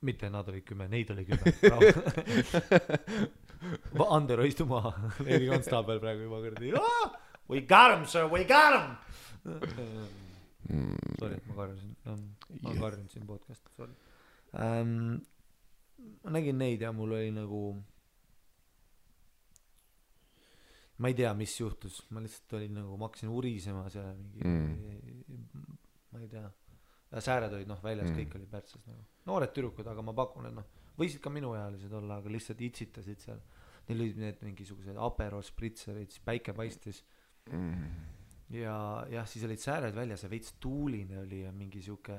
Mitte nad olid 10, neid oli 10. Andero istu maha. Leili Konstaabel praegu juba kõrdi. We got him, sir, we got him. Sorry, et ma karjusin. Ma karjun siin podcast. Sorry. Ma nägin neid ja mul oli nagu ma ei tea, mis juhtus. Ma lihtsalt olin nagu, ma hakkasin urisema seal mingi ma ei tea. Ja sääred olid väljas, kõik oli pärtsas nagu. Noored tüdrukud, aga ma pakun, et võisid ka minuealised olla, aga lihtsalt itsitasid seal. Neil olid need mingisugused Aperol spritzerid, siis päike paistis. Ja siis olid sääred väljas ja veits tuuline oli ja mingi siuke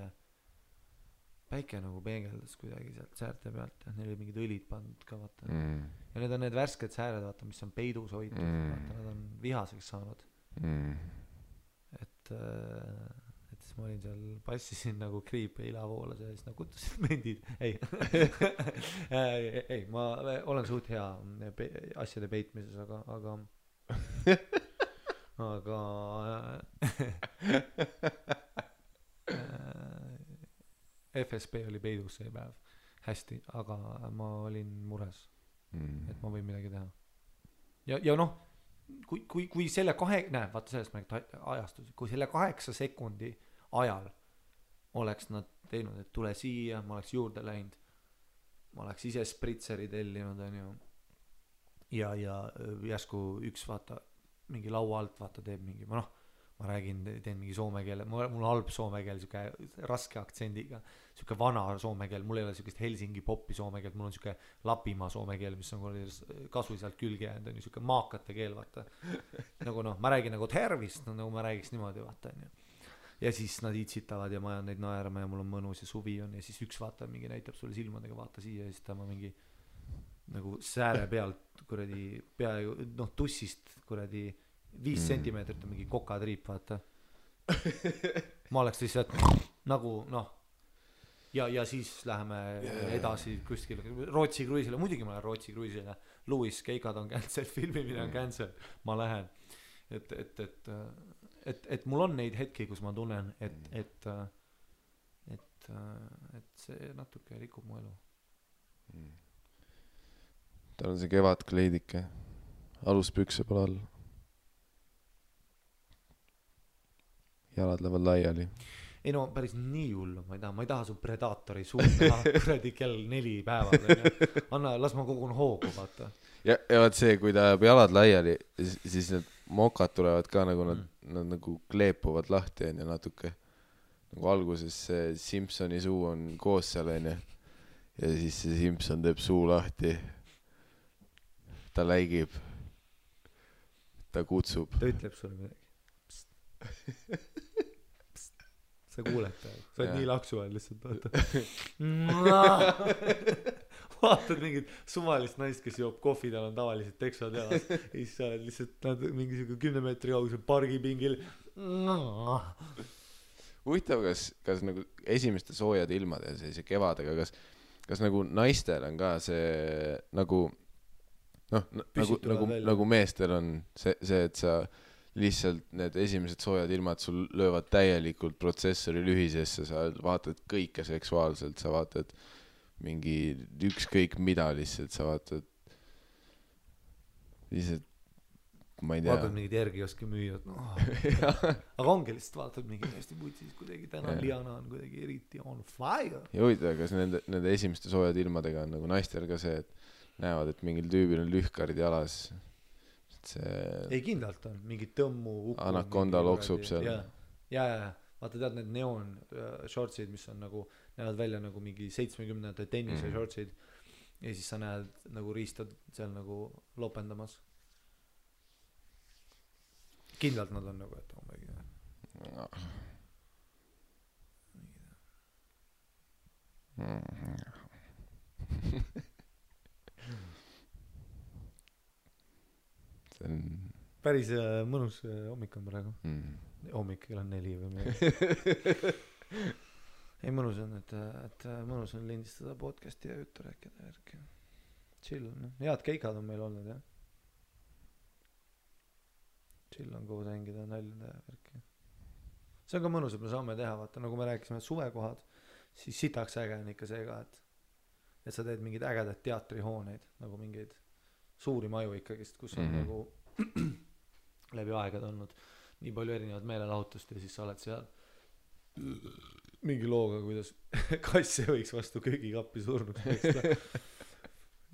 päike nagu peegeldas kuidagi sealt säärte pealt ja neil oli mingid õlid pandud ka vaata. Ja need on need värsked sääred vaata, mis on peidus hoitud vaata, nad on vihaseks saanud. Et siis ma olin seal, passisin nagu kriip ja ilavoolas ja siis nagu kuttusid mendid. Ei, ma olen suht hea asjade peitmises, aga FSB oli peidus see päev hästi, aga ma olin mures, et ma võin midagi teha. Ja noh, kui selle vaata sellest ma ajastus, kui selle 8 sekundi ajal oleks nad teinud, et tule siia, ma oleks juurde läinud, ma oleks ise spritseri tellinud, on ju, ja järsku üks vaata, mingi laua alt vaata teeb mingi, ma ma räägin, teen mingi soome keele, mul on halb soome keel, siuke raske aktsendiga, siuke vana soome keel, mul ei ole siukest Helsingi popi soome keelt, mul on siuke Lapimaa soome keel, mis on kasvõi sealt külge jäänud, on ju siuke maakate keel, vaata. Nagu noh, ma räägin nagu tervist, no, nagu ma räägiks niimoodi, vaata, on ju. Ja siis nad iitsitavad ja ma ajan neid naerma ja mul on mõnus ja suvi on ja siis üks vaata mingi näitab sulle silmadega, vaata siia ja siis ta ma mingi nagu sääre pealt kuradi peaaegu noh tussist kuradi 5 sentimeetrit on mingi kokatriip, vaata. Ma oleks lihtsalt nagu noh ja siis läheme edasi kuskile Rootsi kruiisile, muidugi ma lähen Rootsi kruiisile, Louis Keikad on cancel, filmimine on cancel, ma lähen et mul on neid hetki, kus ma tunnen et see natuke rikub mu elu. Tal on see kevadkleidike, aluspükse pole all, jalad lähevad laiali. Ei no päris nii hullu, ma ei taha su Predatori suud näha kuradi kell 4 päeval, anna, las ma kogun hoogu, vaata. Ja vaat see, kui ta jääb jalad laiali, siis need mokad tulevad ka nagu nad nagu kleepuvad lahti ja natuke nagu alguses see Simpsoni suu on koos seal ja siis see Simpson teeb suu lahti, ta läigib, ta kutsub, ta ütleb sulle midagi. Sa kuuled ta, sa oled nii laksu all lihtsalt, vaata. Vaatad mingit suvalist naist, kes joob kohvi, tal on tavaliselt teksad jalas ja siis sa oled lihtsalt mingi 10 meetri kaugusel pargipingil. Huvitav, kas nagu esimeste soojade ilmade ja sellise kevadega, kas nagu naistel on ka see nagu nagu meestel on see, et sa lihtsalt need esimesed soojad ilmad sul löövad täielikult protsessori lühisesse, sa vaatad kõike seksuaalselt, sa vaatad mingi ükskõik mida lihtsalt, sa vaatad lihtsalt, ma ei tea. Vaatad mingid järgioski müüjad, aga ongi lihtsalt vaatad mingi hästi putsis kuidagi, täna Liana on kuidagi eriti on fire. Ja huvitav, kas nende esimeste soojad ilmadega on nagu naistel ka see, et näevad, et mingil tüübil on lühkarid jalas. Ei kindlalt on, mingi tõmmu anakonda loksub seal. Ja vaata tead need neon shortsid, mis on nagu, näevad välja nagu mingi 70-ndate tennise shortsid ja siis sa näed nagu riistad seal nagu lopendamas. Kindlalt nad on nagu, et päris mõnus hommik on praegu. Hommik kell on 4 või midagi. Ei mõnus on, et mõnus on lindistada podcasti ja juttu rääkida järgi. Chill on, head keikad on meil olnud, jah. Chill on koos hängida, näljada ja järgi. See on ka mõnus, et me saame teha, vaata, nagu me rääkisime suvekohad, siis sitaks äge on ikka see ka, et sa teed mingid ägedad teatrihooneid, nagu mingeid suuri maju ikkagist, kus on nagu läbi aegad olnud nii palju erinevad meelelahutust ja siis sa oled seal mingi looga, kuidas kasse võiks vastu köögikappi surnuks peksta.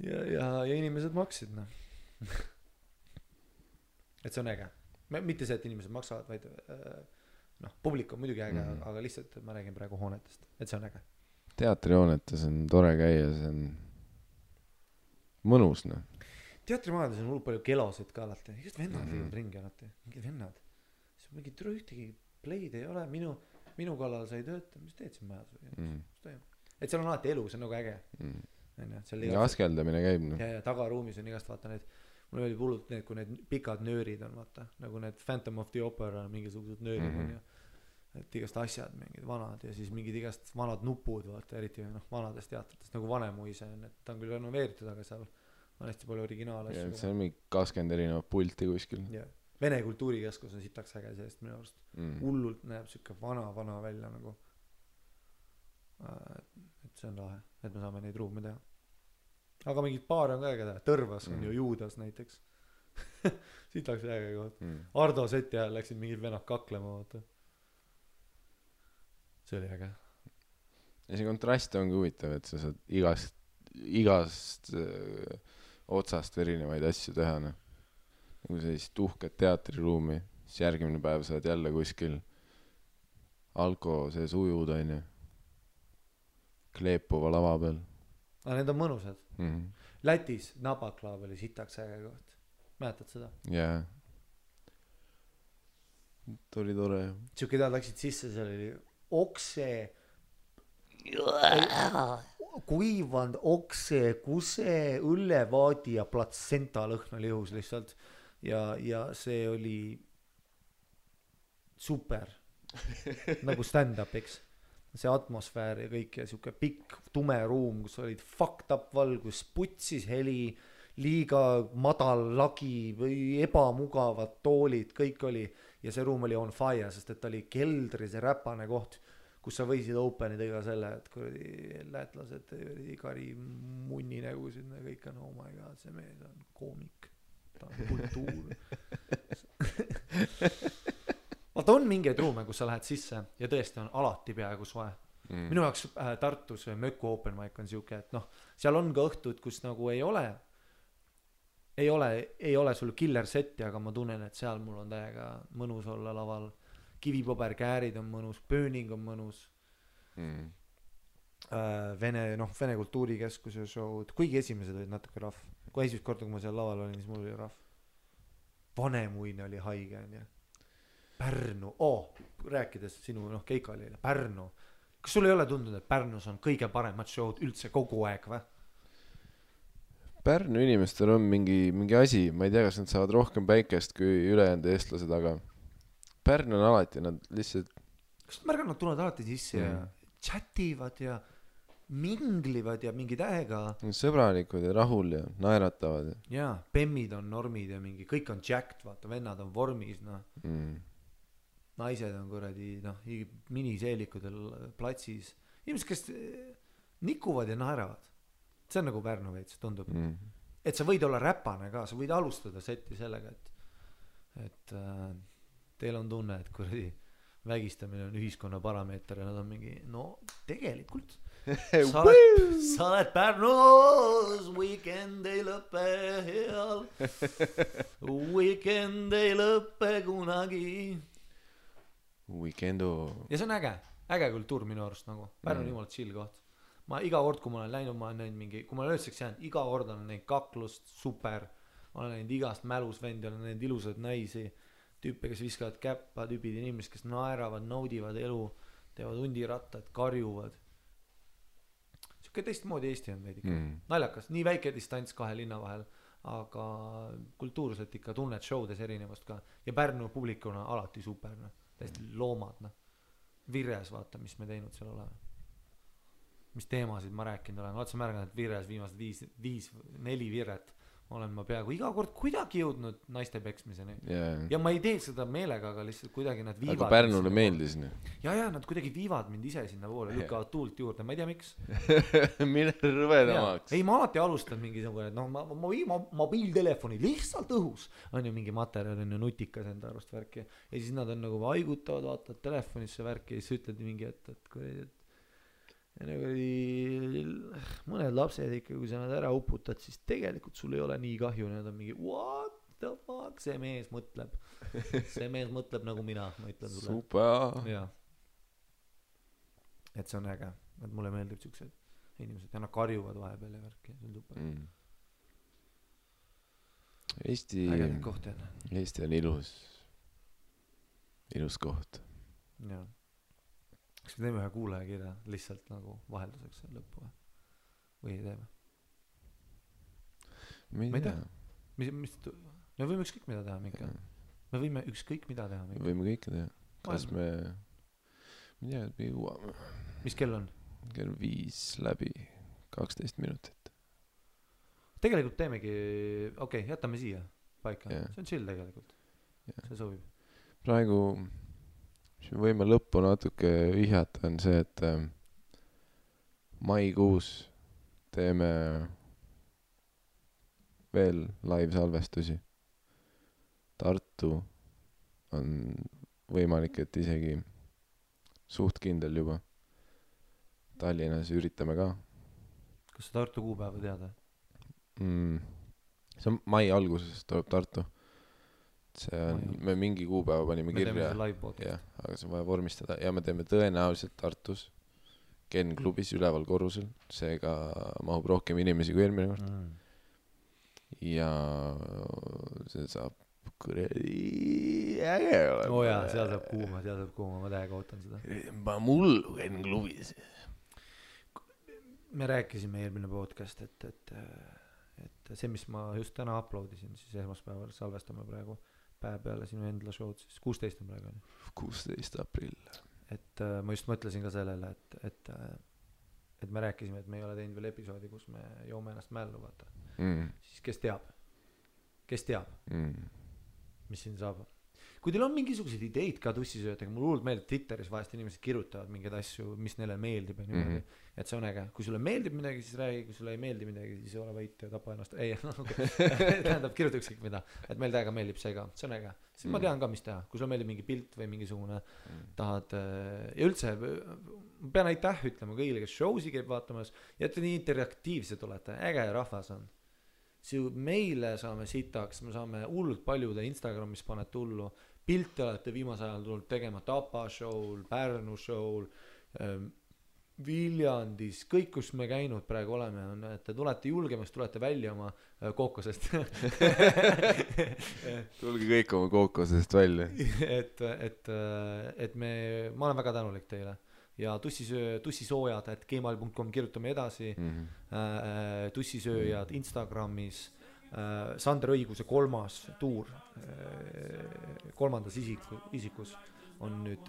ja inimesed maksid, noh. Et see on äge. Mitte see, et inimesed maksavad, vaid noh, publik on muidugi äge, aga lihtsalt ma räägin praegu hoonetest, et see on äge. Teatrihoonetes on tore käia, see on mõnus, noh. Teatrimajades on hullult palju kelosid ka alati. Igast vennad viivad ringi alati. Mingid vennad. Siis mingi ühtegi play'd ei ole. Minu kallal sa ei tööta. Mis teed siin majas? Et seal on alati elu, see on nagu äge. Ja askeldamine käib. Ja tagaruumis on igast vaata need, mul oli hullult need, kui need pikad nöörid on, vaata. Nagu need Phantom of the Opera mingisugused nöörid on ja et igast asjad, mingid vanad ja siis mingid igast vanad nupud, vaata, eriti vanadest teatritest, nagu Vanemuise on, et ta on küll renoveeritud, aga seal on hästi palju originaal-asju. See on mingi 20 erinevat pulti kuskil. Vene kultuurikeskus on sitaks äge sellest minu arust. Hullult näeb siuke vana välja nagu. Et see on lahe, et me saame neid ruume teha. Aga mingid paare on ka äge teha. Tõrvas on ju Juudas näiteks. Sitaks äge koht. Ardo seti ajal läksid mingid vennad kaklema, vaata. See oli äge. Ja see kontrast ongi huvitav, et sa saad igast otsast erinevaid asju teha, noh. Nagu sellist uhket teatriruumi, siis järgmine päev sa oled jälle kuskil alko sees ujud onju kleepuva lava peal aga need on mõnusad Lätis Nabaklav oli sitaks äge koht mäletad seda? jaa tuli tore siuke tead läksid sisse seal oli okse kuivanud okse kuse õllevaadi ja platsenta lõhn oli õhus lihtsalt ja see oli super nagu stand-up eks see atmosfäär ja kõik ja siuke pikk tume ruum kus olid fucked up valgus putsis heli liiga madal lagi või ebamugavad toolid kõik oli ja see ruum oli on fire sest et ta oli keldri see räpane koht kus sa võisid openida iga selle et kuradi lätlased kari munni nägusid ja kõik on oh my god see mees on koomik ta on kultuur vaata on mingeid ruume kus sa lähed sisse ja tõesti on alati peaaegu soe minu jaoks Tartus Möku open mic on siuke et noh seal on ka õhtud kus nagu ei ole sul killer setti aga ma tunnen et seal mul on täiega mõnus olla laval kivipaberkäärid on mõnus pööning on mõnus Vene kultuurikeskuse show'd kuigi esimesed olid natuke rahv kui esimest korda kui ma seal laval olin siis mul oli rahv Vanemuine oli haige onju Pärnu rääkides sinu Keikali Pärnu kas sul ei ole tundunud et Pärnus on kõige paremad show'd üldse kogu aeg või? Pärnu inimestel on mingi asi ma ei tea kas nad saavad rohkem päikest kui ülejäänud eestlased aga Pärnu on alati nad lihtsalt kas nad märganud nad tulevad alati sisse ja chativad ja minglivad ja mingi tähega sõbralikud ja rahul ja naeratavad ja bemmid on normid ja mingi kõik on jacked vaata vennad on vormis naised on kuradi miniseelikudel platsis inimesed kes nikuvad ja naeravad see on nagu Pärnu veits tundub et sa võid olla räpane ka sa võid alustada seti sellega et teil on tunne et kuradi vägistamine on ühiskonna parameeter ja nad on mingi no tegelikult sa oled Pärnus weekend ei lõpe heal weekend ei lõpe kunagi weekendo ja see on äge kultuur minu arust nagu Pärnu on jumala chill koht ma iga kord kui ma olen läinud ma olen näinud mingi kui ma olen ööseks jäänud iga kord olen näinud kaklust super ma olen näinud igast mälus vendi olen näinud ilusaid naisi tüüpe kes viskavad käppa tüübid inimesed kes naeravad naudivad elu teevad hundirattad karjuvad siuke teistmoodi Eesti on veidi naljakas nii väike distants kahe linna vahel aga kultuurselt ikka tunned showdes erinevust ka ja Pärnu publikuna alati super täiesti loomad Vires vaata mis me teinud seal oleme mis teemasid ma rääkinud olen oled sa märganud et Vires viimased 4 viret olen ma peaaegu iga kord kuidagi jõudnud naiste peksmiseni ja ma ei tee seda meelega aga lihtsalt kuidagi nad viivad aga Pärnule meeldis ja nad kuidagi viivad mind ise sinna poole lükkavad tuult juurde ma ei tea miks mine rõvedamaks ei ma alati alustan mingisugune et mobiiltelefoni lihtsalt õhus on ju mingi materjal on ju nutikas enda arust värki ja siis nad on nagu haigutavad vaatavad telefonisse värki ja siis ütled mingi et ja nagu mõned lapsed ikka kui sa nad ära uputad siis tegelikult sul ei ole nii kahju nad on mingi what the fuck see mees mõtleb nagu mina ma ütlen sulle super ja et see on äge et mulle meeldib siuksed inimesed ja nad karjuvad vahepeal ja värki see on super Eesti on ilus koht jah kas me teeme ühe kuulajakirja lihtsalt nagu vahelduseks lõppu või ei teeme? ma ei tea me võime ükskõik mida teha mingi me võime ükskõik mida teha mingi võime kõike teha kas me ei tea me jõuame mis kell on? kell 5 läbi 12 minutit tegelikult teemegi jätame siia paika see on chill tegelikult see sobib praegu mis me võime lõppu natuke vihjata on see, et maikuus teeme veel live-salvestusi. Tartu on võimalik, et isegi suht kindel juba. Tallinnas üritame ka. Kas sa Tartu kuupäeva teada? See on mai alguses tuleb Tartu. see on, me mingi kuupäeva panime kirja, jah, aga see on vaja vormistada ja me teeme tõenäoliselt Tartus Ken klubis üleval korrusel, seega mahub rohkem inimesi kui eelmine kord ja see saab kuradi äge olema. Jaa, seal saab kuuma, ma täiega ootan seda. Ma mullu Ken klubis. Me rääkisime eelmine podcast, et see, mis ma just täna uploadisin, siis esmaspäeval salvestame praegu päev peale sinu endla show'd, siis 16 on praegu. 16 aprill. Et ma just mõtlesin ka sellele, et me rääkisime, et me ei ole teinud veel episoodi, kus me joome ennast mällu, vaata. Siis kes teab, mis siin saab. Kui teil on mingisugused ideid ka tussisöötega, mul hullult meeldib Twitteris vahest inimesed kirjutavad mingeid asju, mis neile meeldib ja niimoodi, et see on äge. Kui sulle meeldib midagi, siis räägi, kui sulle ei meeldi midagi, siis ole võit ja tapa ennast. Ei, tähendab, kirjuta ükskõik mida, et meil täiega meeldib see ka, see on äge. Siis ma tean ka, mis teha, kui sulle meeldib mingi pilt või mingisugune tahad ja üldse, ma pean aitäh ütlema kõigile, kes show'si käib vaatamas ja et nii interaktiivsed olete, äge rahvas on. Meile saame sitaks, me saame hullult paljude Instagramis paned tullu, pilte olete viimase ajal tulnud tegema Tapa show'l, Pärnu show'l, Viljandis, kõik kus me käinud praegu oleme on, et te tulete julgemast, tulete välja oma kookosest tulge kõik oma kookosest välja et ma olen väga tänulik teile ja tussisoojad @gmail.com kirjutame edasi tussisööjad Instagramis Sander Õiguse 3. tuur 3. isikus on nüüd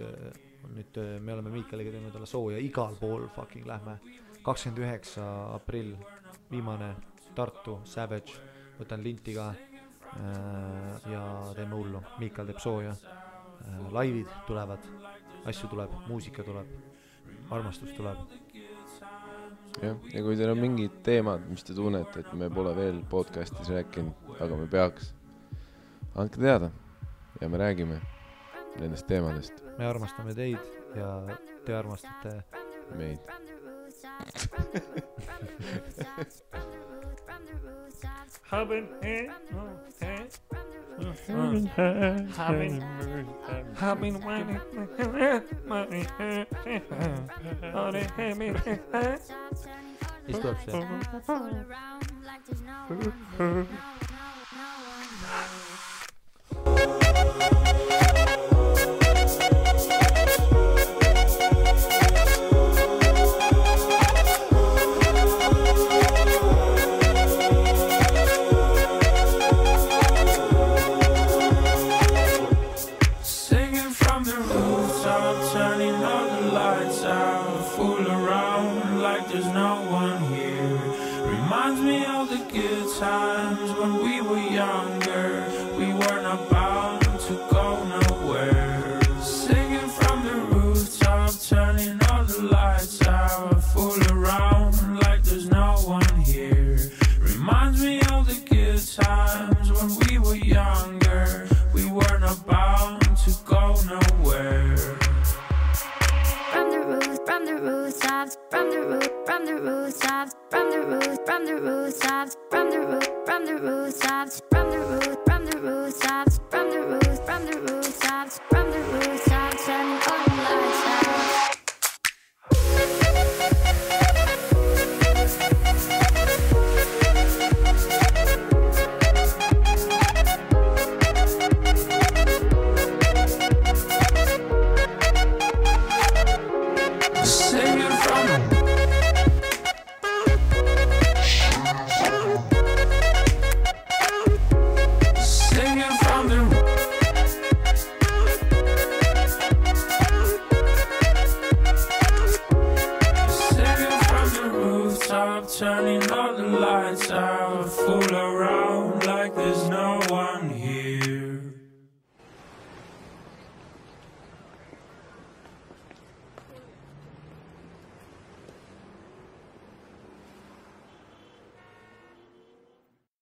me oleme Miikaliga teinud talle sooja igal pool fucking lähme 29. aprill viimane Tartu Savage võtan linti ka ja teeme hullu Miikal teeb sooja laivid tulevad asju tuleb muusika tuleb armastus tuleb jah, ja kui teil on mingid teemad mis te tunnete et me pole veel podcastis rääkinud aga me peaks andke teada ja me räägime nendest teemadest. Me armastame teid ja te armastate meid. Mis tuleb see? Times when we were younger, we weren't about to go nowhere. Singing from the rooftop, turning all the lights out, fool around like there's no one here. Reminds me of the good times when we were younger, we weren't about to go nowhere. From the rooftops, from the rooftops, from the rooftops, from the rooftops, from the rooftops, turning all the lights out. Turning all the lights out, fool around like there's no one here.